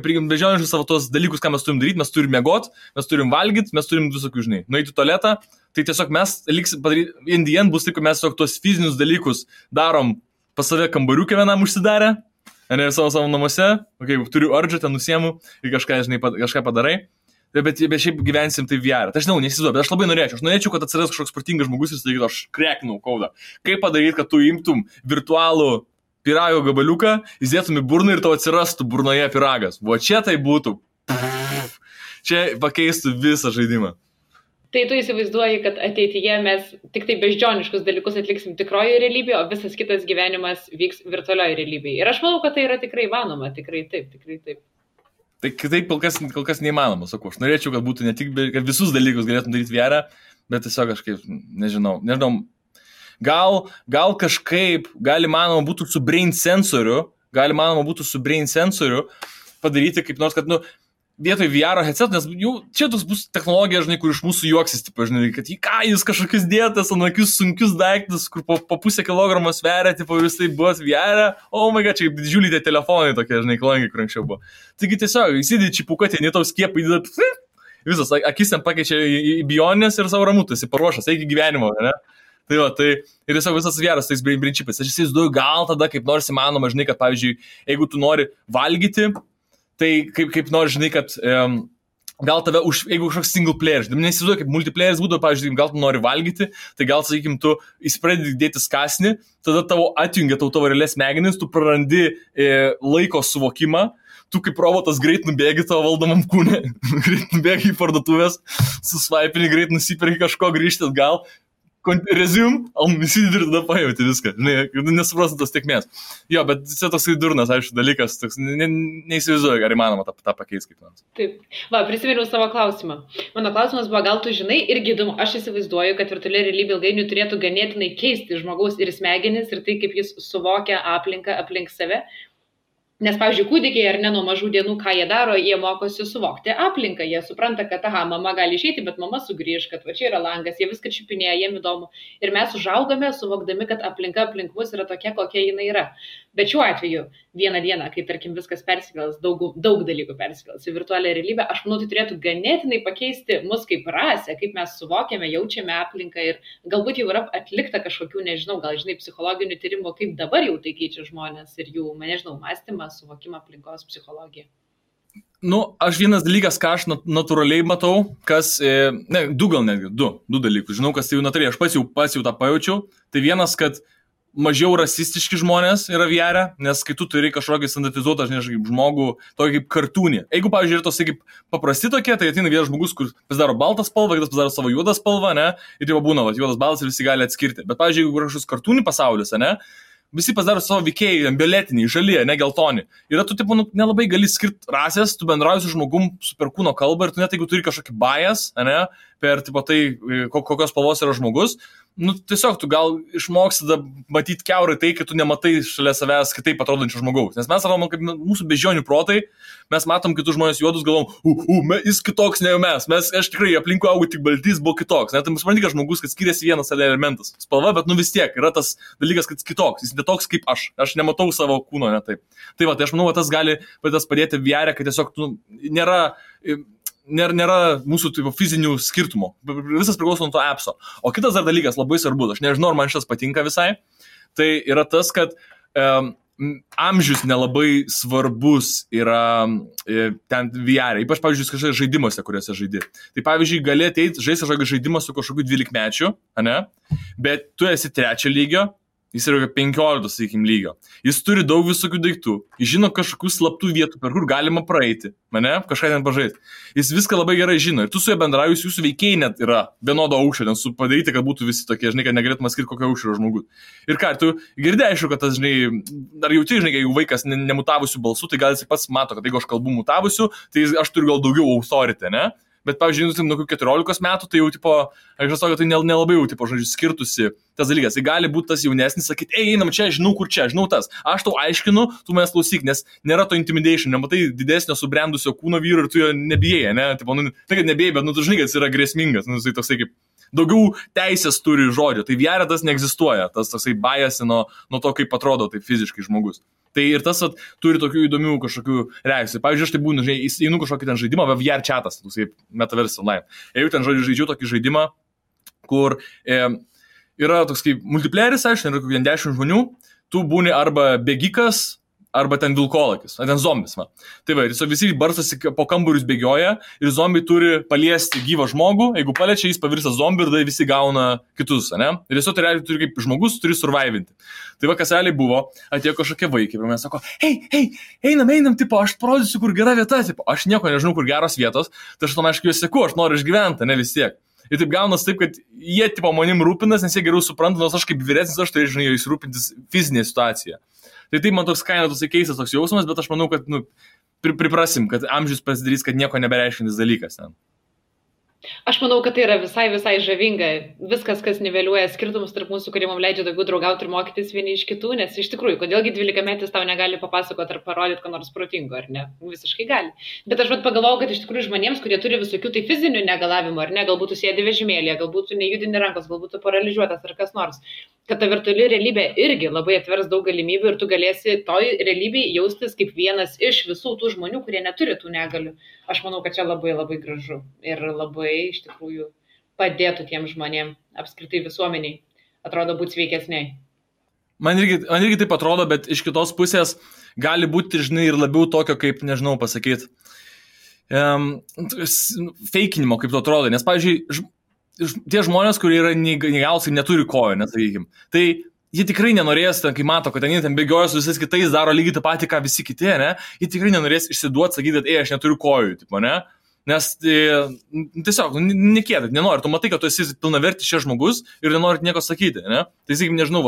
savo tos dalykus, ką mes turim daryti, mes turim miegot, mes turim valgyti, mes turim visokių, nueiti į tualetą, tai tiesiog mes padaryti, in the end bus taip, kad mes tiesiog tos fizinius dalykus darom pas save kambariukę vienam užsidarę, ne savo namuose, turiu ardžą, ten nusiemu ir kažką padarai. Bet šiaip gyvensim tai VR. Tai aš žinau, nesivaizduoju, bet aš labai norėčiau, kad atsiras kažkoks protingas žmogus ir sakytų, aš kreknau kodą. Kaip padaryti, kad tu imtum virtualų pyrago gabaliuką, įdėtum į burną ir tau atsirastų burnoje pyragas. O čia tai būtų. Čia pakeistų visą žaidimą. Tai tu įsivaizduoji, kad ateityje mes tik tai beždžioniškus dalykus atliksim tikroje realybėje, o visas kitas gyvenimas vyks virtualioje realybėje. Ir aš manau, kad tai yra tikrai įmanoma, tikrai taip. Tai kitaip kol kas neįmanoma, sakau. Aš norėčiau, kad būtų ne tik, kad visus dalykus galėtum daryti VR, bet tiesiog kažkaip, nežinau. Gal kažkaip įmanoma būtų su brain sensoriu padaryti kaip nors, kad, vietoj VR headset, nes jau čia tos bus technologija, žinai, kur iš mūsų juoksis, tipo, žinai, kad jis kažkokius dėtas, ant akius sunkius daiktus, kur po pusę kilogramo sveria, tipo, ir jis tai buvo VR, oh my god, čia kaip didžiuliai tie telefonai tokie, žinai, klangiai, kur anksčiau buvo. Taigi tiesiog, įsidė čipuką, ten tau skiepai, visas, akis ten pakeičia į bioninės ir savo ramutas, į paruošas, eigi gyvenimo, ne? Tai ir tiesiog visas vieras tais brain chipais. Aš įsivaizduoju, gal tada kaip nors įmanoma, žinai, kad, pavyzdžiui, jeigu tu nori valgyti, tai kaip nori, žinai, kad gal tave, jeigu kažkoks single player, nesivaizduoju, kaip multiplayeris būtų, pavyzdžiui, gal tu nori valgyti, tai gal, sakykim, tu įspradedi dėti kąsnį, tada tavo atjungia tavo realias smegenis, tu prarandi laiko suvokimą, tu kaip robotas greit nubėgi tavo valdomam kūne, greit nubėgi į parduotuvės, susvaipini, greit nusipirki kažko, grįžti atgal, resume, įsidedi ir tada pajauti viską, nesuprastant tos tiekmės. Jo, bet čia toksai durnas, aišku, dalykas, neįsivaizduoju, ar įmanoma tą pakeisti kaip nors. Taip, prisiminiau savo klausimą. Mano klausimas buvo, gal tu žinai, irgi įdomu, aš įsivaizduoju, kad virtuali realybė ilgainiui turėtų ganėtinai keisti žmogaus ir smegenis ir tai, kaip jis suvokia aplinką aplink save. Nes, pavyzdžiui, kūdikiai ar ne nuo mažų dienų, ką jie daro, jie mokosi suvokti aplinką. Jie supranta, kad, mama gali išeiti, bet mama sugrįž, kad va čia yra langas, jie viską čiupinėja, jiem įdomu. Ir mes užaugame, suvokdami, kad aplinka aplink mus yra tokia, kokia jinai yra. Bet šiuo atveju, vieną dieną, kai, tarkim, viskas persikels, daug dalykų persikels į virtualią realybę, aš manau, tai turėtų ganėtinai pakeisti mus kaip rasę, kaip mes suvokiame, jaučiame aplinką ir galbūt jau yra atlikta kažkokių, nežinau, gal, žinai, psichologinių tyrimų, kaip dabar jau tai keičia žmonės ir jų, nežinau, mąstymą, suvokimą aplinkos psichologiją. Aš vienas dalykas, ką aš natūraliai matau, kas, du dalykus, žinau, kas tai jau natūraliai, aš pats jau tą pajaučiau, tai vienas, kad mažiau rasistiški žmonės yra VR, nes kai tu turi kažkokį standartizuotą, kaip žmogų, tokį kaip kartūnį. Jeigu, pavyzdžiui, yra tos kaip paprasti tokie, tai ateina vienas žmogus, kur pasidaro baltą spalvą, kitas pasidaro savo juodą spalvą, ne, ir jau būna, juodas baltas ir visi gali atskirti. Bet, pavyzdžiui, jeigu kažkoks kartūnį pasaulis, ne, visi pasidaro savo veikėjai, violetiniai, žalie, ne geltoni. Ir tu, tipo, nelabai gali skirti rasės, tu bendrauji su žmogum su per kūno kalbą ir tu net jeigu turi kažkokį bias, ne, per, tipo, tai, kokios spalvos yra žmogus, tiesiog tu gal išmoksi matyti kiaurai tai, kad tu nematai šalia savęs kitaip atrodančio žmogaus. Nes mes sakom, kaip mūsų beždžionių protai, mes matom kitus žmonės juodus, galvom, jis kitoks negu mes. Aš tikrai aplinkui augu tik baltys, buvo kitoks. Net tai supranti, kad žmogus, kad skiriasi vienas elementas. Spalva, bet vis tiek yra tas dalykas, kad jis kitoks. Jis netoks kaip aš. Aš nematau savo kūno, ne taip. Tai aš manau, tas gali padėti VR, kad tiesiog nėra mūsų tipo, fizinių skirtumų. Visas priklauso nuo to appso. O kitas dar dalykas labai svarbus, aš nežinau, ar man šitas patinka visai, tai yra tas, kad amžius nelabai svarbus yra ten VR. Ypač, pavyzdžiui, kažkokiuose žaidimuose, kuriuose žaidi. Tai, pavyzdžiui, gali ateiti žaisti kažkokį žaidimą su kažkokiu 12-mečiu, ne? Bet tu esi 3 lygio, jis yra 15, sakykim, lygio. Jis turi daug visokių daiktų. Jis žino kažkokių slaptų vietų, per kur galima praeiti. Kažką ten pažaisti. Jis viską labai gerai žino. Ir tu su juo bendrauji, jūsų veikėjai net yra vienodo aukščio, ten padaryti, kad būtų visi tokie, žinai, kad negalėtum skirti kokio aukščio žmogus. Ir ką, tu girdėjai, aišku, kad tas, žinai, dar jauti, žinai, jeigu vaikas nemutavusių balsų, tai gal jis pats mato, kad jeigu aš kalbu mutavusių, tai aš turiu gal daugiau authority, ne? Bet, pavyzdžiui, nuo 14 metų, tai jau, tipo, aš žinau, kad tai nelabai jau, tipo, žodžiu, skirtusi tas dalykas. Tai gali būti tas jaunesnis, sakyti, einam čia, žinau, kur čia, žinau tas. Aš tau aiškinu, tu manęs klausyk, nes nėra to intimidation, nematai didesnio subrendusio kūno vyro ir tu jo nebijai, ne? Tipo, tai, kad nebijai, bet, tu žinai, kad jis yra grėsmingas, tai toksai kaip daugiau teisės turi žodžio. Tai VR tas neegzistuoja, tas toksai bias nuo to, kaip atrodo taip fiziškai žmogus. Tai ir tas turi tokių įdomių kažkokių reakcijų. Pavyzdžiui, aš tai būnu, žinai, įeinu kažkokį ten žaidimą, VR chatas, toksai metaverse online. Jeigu ten žaidžiu tokį žaidimą, kur yra toks kaip multiplayeris, aišku, yra kokie 10 žmonių, tu būni arba bėgikas, arba ten vilkolakis, ten zombis. Va. Tai va, ir visi barstosi po kambarius bėgioja ir zombiai turi paliesti gyvą žmogų, jeigu paliečia, jis pavirsta zombi ir tada visi gauna kitus, ne? Ir tiesiog tai realiai turi kaip žmogus, turi survivinti. Tai va, kas realiai buvo, atėjo kažkokie vaikai ir mes sako, hei, einam, tipo, aš parodysiu, kur gera vieta, tipo, aš nieko nežinau, kur geros vietos, tai aš tam aišku juos seku, aš noriu išgyventi, ne vis tiek. Ir taip gaunas taip, kad jie tipo manim rūpinas, nes jie geriau supranta, nors aš kaip vyresnis, aš turėčiau jais rūpintis fizinė situacija. Tai taip man toks kaina, toks keistas toks jausmas, bet aš manau, kad priprasim, kad amžius pasidarys, kad nieko nebereiškintis dalykas ten. Aš manau, kad tai yra visai žavinga. Viskas, kas niveliuoja skirtumus tarp mūsų, kurie mums leidžia daugiau draugauti ir mokytis vieni iš kitų, nes iš tikrųjų, kodėlgi 12-metis tau negali papasakoti ar parodyti, ką nors protingo, ar ne? Visiškai gali. Bet aš pagalvojau, kad iš tikrųjų žmonėms, kurie turi visokių tai fizinių negalavimų, ar ne, galbūt sėdi vežimėlėje, galbūt nejudini rankos, galbūt paralyžiuotas ar kas nors, kad ta virtuali realybė irgi labai atvers daug galimybių ir tu galėsi toj realybėj jaustis kaip vienas iš visų tų žmonių, kurie neturi tų negalių. Aš manau, kad čia labai gražu ir labai iš tikrųjų padėtų tiem žmonėm, apskritai visuomeniai, atrodo būti sveikesniai. Man irgi taip atrodo, bet iš kitos pusės gali būti, žinai, ir labiau tokio, kaip, nežinau, pasakyti, feikinimo, kaip to atrodo. Nes, pavyzdžiui, tie žmonės, kurie yra neįgalūs ir neturi kojų, nesakykime, tai jie tikrai nenorės, kai mato, kad ten bėgioja su visais kitais, daro lygiai tą patį, ką visi kiti, ne? Jie tikrai nenorės išsiduoti, sakyti, kad aš neturiu kojų, tipo, ne? Nes tiesiog, nekėdat, nenori, tu matai, kad tu esi pilnavertis šis žmogus ir nenori nieko sakyti, ne? Tai sakykim, nežinau,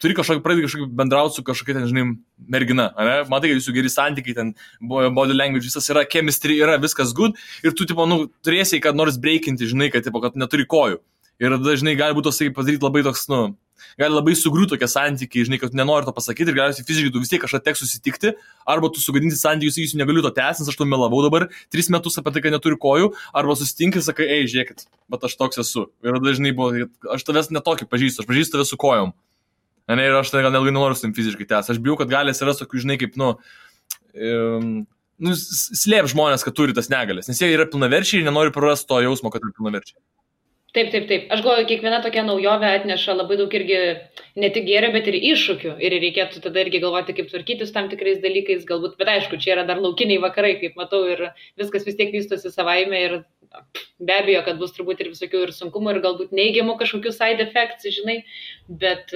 turi pradėti kažkokį bendrauti su kažkokia, ten, žinai, mergina, ne? Matai, kad jūsų geri santykiai, ten body language, visas yra, chemistry yra, viskas good ir tu, tipo, turėsi, kad nors breikinti, žinai, kad, tipo, kad neturi kojų. Ir dažnai gali būti tos, padaryti labai toks, gali labai sugriūti tokie santykiai, žinai, kad tu nenori to pasakyti ir galiausiai fiziškai tu vis tiek kažką teks susitikti, arba tu sugadinti santykius, sakysiu, negaliu to tęsti, nes aš to melavau dabar 3 metus apie tai, kad neturiu kojų, arba susitinki ir sakai, žiūrėkit, bet aš toks esu. Ir dažnai buvo, aš tavęs netokį pažįstu, aš pažįstu tave su kojom. Ne, ir aš gal nelgai nenoriu su tim fiziškai tęsti. Aš bijau, kad gali atsirasti tokių, žinai, kaip, slėp žmonės, kad turi tas negalės, nes jie yra pilnaverčiai ir nenori prarasti to jausmo, kad yra pilnaverčiai. Taip. Aš galvoju, kiekviena tokia naujovė atneša labai daug irgi ne tik gėrio, bet ir iššūkių. Ir reikėtų tada irgi galvoti, kaip tvarkytis tam tikrais dalykais, galbūt, bet aišku, čia yra dar laukiniai vakarai, kaip matau, ir viskas vis tiek vystosi savaime ir be abejo, kad bus turbūt ir visokių ir sunkumų, ir galbūt neigiamų kažkokių side effects, žinai, bet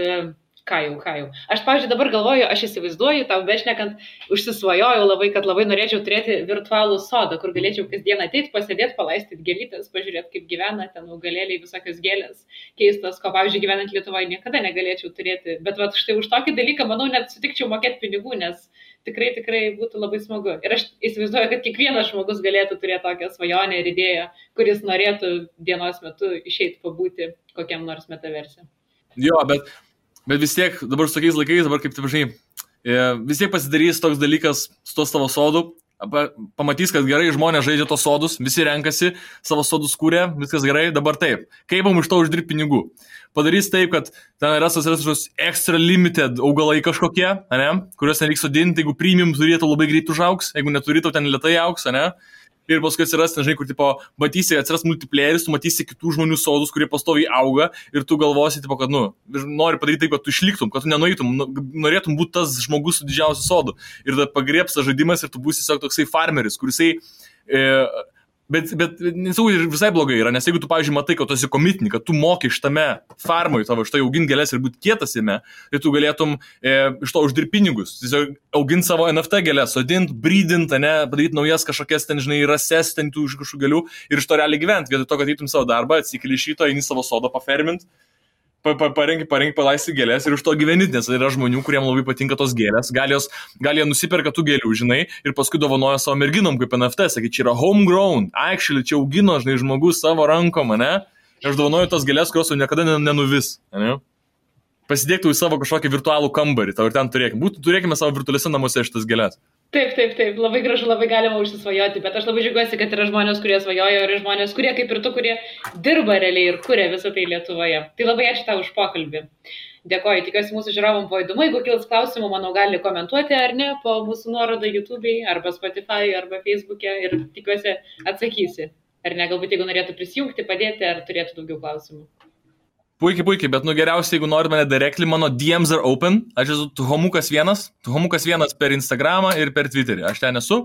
ką jau. Aš, pavyzdžiui, dabar galvoju, aš įsivaizduoju, tau bešnekant, užsisvajojau labai, kad labai norėčiau turėti virtualų sodą, kur galėčiau kasdien ateiti, pasėdėti, palaistyti gėlytės, pažiūrėti, kaip gyvena ten augalėliai, visokios gėlės keistos, ko, pavyzdžiui, gyvenant Lietuvoje niekada negalėčiau turėti. Bet vat, štai už tokį dalyką, manau, net sutikčiau mokėti pinigų, nes tikrai būtų labai smagu. Ir aš įsivaizduoju, kad kiekvienas žmogus galėtų turėti tokią svajonę ir idėją, kuris norėtų dienos metu išeiti pabūti kokiam nors metaverse. Jo, bet vis tiek, dabar su tokiais laikais, dabar kaip taip žinai, vis tiek pasidarys toks dalykas su to savo sodu, pamatys, kad gerai žmonės žaidžia tos sodus, visi renkasi, savo sodus kūrė, viskas gerai, dabar taip. Kaip mums iš to uždirbti pinigų? Padarys taip, kad ten yra kažkokios extra limited augalai kažkokie, ne? Kuriuos nereiks sodinti, jeigu premium turėtų labai greit užaugs, jeigu neturėtų ten lėtai augs, ne? Ir paskui atsiras, nežinai, kur, tipo, matysi, atsiras multiplayeris, tu matysi kitų žmonių sodus, kurie pastoviai auga ir tu galvosi, tipo, kad, nori padaryti taip, kad tu išliktum, kad tu nenueitum, norėtum būti tas žmogus su didžiausiu sodu. Ir tada pagriebs tas žaidimas ir tu būsi tiesiog toksai farmeris, kurisai... Bet nesau, ir visai blogai yra, nes jeigu tu, pavyzdžiui, matai, kad tu esi komitinį, kad tu moki šitame farmui tavo, štai auginti gėlės ir būti kietas jame, tai tu galėtum iš to uždirbti pinigus. Tiesiog auginti savo NFT gėlės, sodinti, brydinti, padaryti naujas kažkokias ten, žinai, rases ten tų iš kažkokių gėlių ir iš to realiai gyventi. Vietoj to, kad eitum savo darbą, atsikeli iš ryto, eini savo sodą pafermint, parengi, palaisti gėlės ir už to gyveni, nes yra žmonių, kuriems labai patinka tos gėlės, gal jie nusiperka tų gėlių, žinai, ir paskui dovanoja savo merginom kaip NFT, sakai, čia yra homegrown, actually, čia augino, žinai, žmogus savo rankom, ne? Ir aš dovanoju tos gėlės, kurios jau niekada nenuvis, ne? Pasidėktų į savo kažkokį virtualų kambarį, tau ir ten turėkime savo virtualiuose namuose šitas gėlės. Taip, labai gražu, labai galima užsisvajoti, bet aš labai džiaugiuosi, kad yra žmonės, kurie svajoja ir žmonės, kurie kaip ir tu, kurie dirba realiai ir kuria visą tai Lietuvoje. Tai labai ačiū tau už pokalbį. Dėkoju, tikiuosi mūsų žiūrovom buvo įdomu, jeigu kils klausimų, manau, gali komentuoti ar ne po mūsų nuorodą YouTube'ai, arba Spotify, arba Facebook'e ir tikiuosi atsakysi. Ar ne, galbūt jeigu norėtų prisijungti, padėti, ar turėtų daugiau klausimų. Puikiai, bet geriausia, jeigu nori mane directly, mano DMs are open, aš esu Tuhomukas1 per Instagramą ir per Twitterį, aš ten esu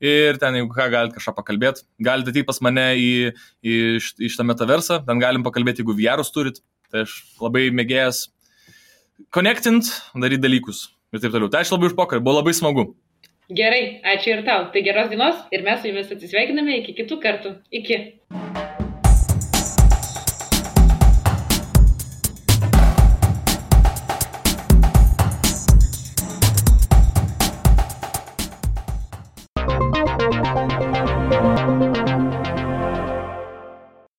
ir ten, jeigu ką, galite kažką pakalbėti, galite ateiti pas mane į šitą metaversą, ten galim pakalbėti, jeigu VR'us turit, tai aš labai mėgėjęs connectint, daryti dalykus ir taip toliau. Tai aš labai už pokalbį, buvo labai smagu. Gerai, ačiū ir tau, tai geros dienos ir mes su jumis atsisveikiname iki kitų kartų. Iki.